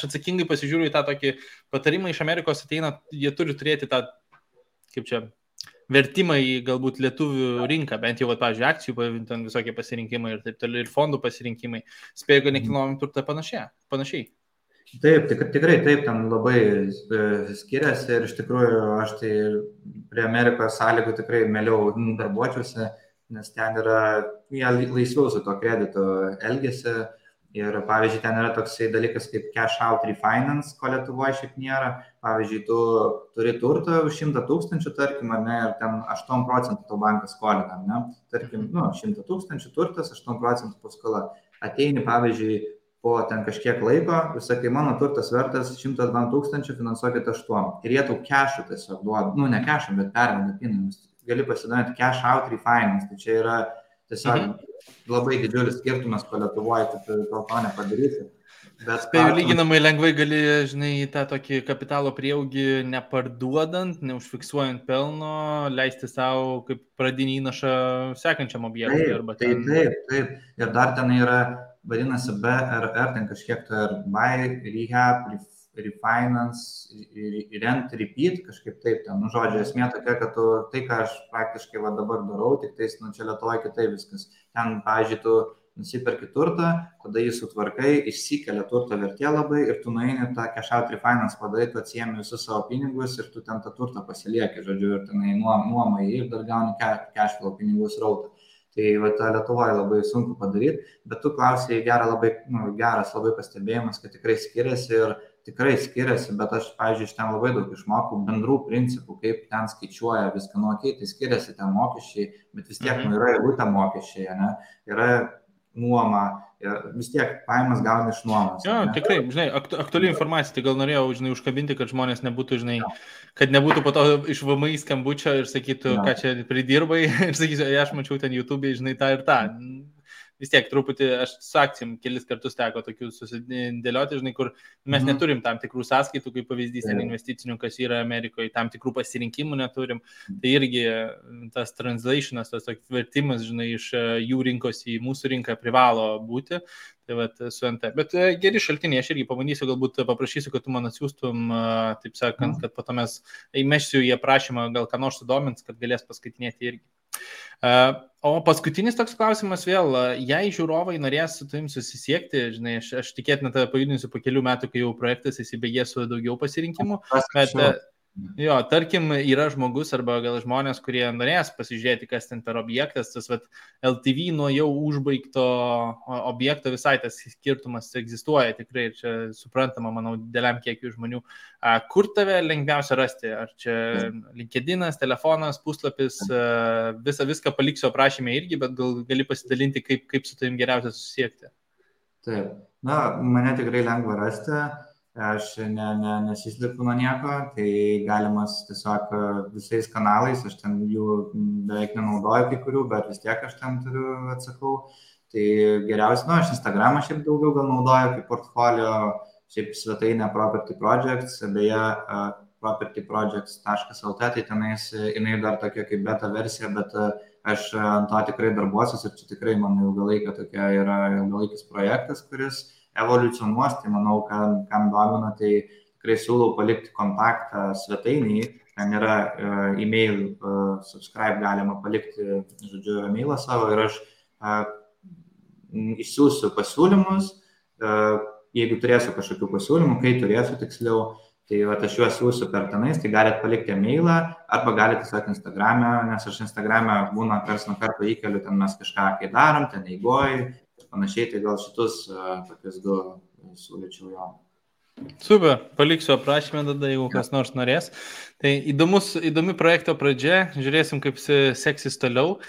atsakingai pasižiūriu į tą tokį patarimą iš Amerikos ateina, jie turi turėti tą, kaip čia, vertimą į galbūt lietuvių rinką, bent jau, pavyzdžiui, akcijų, ten visokie pasirinkimai ir taip toliau, ir fondų pasirinkimai. Spėju, kad nekilnojamą turtą panašiai. Taip, tikrai taip, ten labai skiriasi ir iš tikrųjų aš tai prie Amerikos sąlygų tikrai mieliau darbuočiausi, nes ten yra, jie laisviau su to kreditu elgiasi ir, pavyzdžiui, ten yra toksai dalykas kaip cash out refinance, ko Lietuvoje šiaip nėra. Pavyzdžiui, tu turi turtą už 100 000, tarkim, ar ne, ir ten 8% to bankas skolina, ne? Tarkim, 100 000 turtas, 8% paskola. Ateini, pavyzdžiui, po ten kažkiek laiko, sakai, mano turtas vertas 102 000, finansuokit 8. Ir jie tau cash'ų tiesiog duoda, ne cash'ų, bet perveda pinigus. Gali pasidaryti cash out refinance, tai čia yra tiesiog labai didžiulis skirtumas, ko Lietuvoje, tu to nepadarysi. Spėju, lyginamai lengvai gali, tą tokį kapitalo prieaugį neparduodant, neužfiksuojant pelno, leisti savo kaip pradinį įnašą sekančiam objektui. Taip. Ir dar ten yra, vadinasi BRR, ten kažkiek buy, rehab, refinance, rent, repeat, kažkaip taip ten. Žodžiu, esmė tokia, kad tai, ką aš praktiškai dabar darau, tik tais, čia Lietuvoje kitaip viskas. Ten, pavyzdžiui, tu nusiperki turtą, tada jį sutvarkai, išsikelia turto vertė labai ir tu nueini tą cash out refinance padarai, tu atsiemi visus savo pinigus ir tu ten tą turtą pasilieki, žodžiu, ir tenai nuomai ir dar gauni cash flow pinigų srautą. Tai Lietuvoje labai sunku padaryti, bet tu klausai geras labai pastebėjimas, kad tikrai skiriasi, bet aš, pavyzdžiui, iš ten labai daug išmokau bendrų principų, kaip ten skaičiuoja viską, tai skiriasi ten mokesčiai, bet vis tiek yra eilutė mokesčiai, ne? Yra nuoma, vis tiek pajamas gauni iš nuomos. Jo, tikrai, aktuali informacija, tai gal norėjau, užkabinti, kad žmonės nebūtų, kad nebūtų po to iš VMI skambučio ir sakytų, ką čia pridirbai, ir sakysiu, aš mačiau ten YouTube, tą ir tą. Vis tiek truputį, aš su akcijom kelis kartus teko tokių susidėlioti, kur mes neturim tam tikrų sąskaitų, kaip pavyzdys investicinių, kas yra Amerikoje, tam tikrų pasirinkimų neturim. Tai irgi tas translationas, tas vertimas, iš jų rinkos į mūsų rinką privalo būti. Tai su NT. Bet geri šaltiniai, aš irgi pabandysiu, galbūt paprašysiu, kad tu man atsiųstum, taip sakant, kad po to mes įmešsiu į aprašymą, gal ką nors sudomins, kad galės paskaitinėti irgi. O paskutinis toks klausimas vėl, jei žiūrovai norės su tavim susisiekti, aš tikėtina tave pajudinsiu po kelių metų, kai jau projektas įsibėgės su daugiau pasirinkimų, bet jo, tarkim, yra žmogus arba gal žmonės, kurie norės pasižiūrėti, kas ten per objektas, tas LTV nuo jau užbaigto objekto visai tas skirtumas egzistuoja tikrai ir čia suprantama, manau, dideliam kiekiu žmonių. Kur tave lengviausia rasti? Ar čia LinkedInas, telefonas, puslapis, viską paliksiu aprašyme irgi, bet gal gali pasidalinti, kaip su tavim geriausia susisiekti? Taip, mane tikrai lengva rasti. aš nesislipu nuo nieko, tai galimas tiesiog visais kanalais, aš ten jų beveik nenaudoju kai kurių, bet vis tiek aš ten atsakau. Tai geriausia, aš Instagramą šiaip daugiau gal naudoju kaip portfolio, šiaip svetainė Property Projects, beje, propertyprojects.lt, tai tenais jinai dar tokia kaip beta versija, bet aš ant to tikrai darbuosiu ir čia tikrai mano ilgalaikis projektas, kuris evoliucionuos, tai manau, kam domina, tai tikrai siūlau palikti kontaktą svetainį, ten yra e-mail, subscribe galima palikti, žodžiu, e-mailą savo ir aš išsiųsiu pasiūlymus, jeigu turėsiu kažkokių pasiūlymų, kai turėsiu tiksliau, tai aš juos siūsiu per tenais, tai galite palikti e-mailą arba galite tiesiog Instagram'e, nes aš Instagram'e būna karts nuo karto įkeliu, ten mes kažką kai darom, ten eigoj ir panašiai, tai gal šitus tokius du siūlyčiau jo. Super, paliksiu aprašymę tada, jeigu kas nors norės. Tai įdomi projekto pradžia, žiūrėsim, kaip seksis toliau.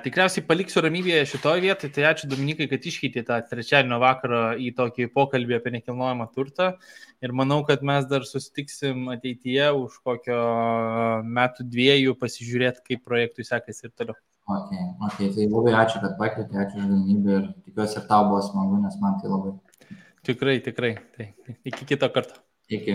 Tikriausiai paliksiu ramybėje šitoje vietoje, tai ačiū Dominikai, kad iškeitė tą trečiadienio vakarą į tokį pokalbį apie nekilnojamą turtą. Ir manau, kad mes dar susitiksim ateityje už kokio metų dviejų pasižiūrėti, kaip projektui sekasi ir toliau. Okay, tai labai ačiū, kad pakvietė, ačiū už galimybę ir tikiuosi ir tau buvo smagu, nes man tai labai. Tikrai. Tai iki kito karto. Iki.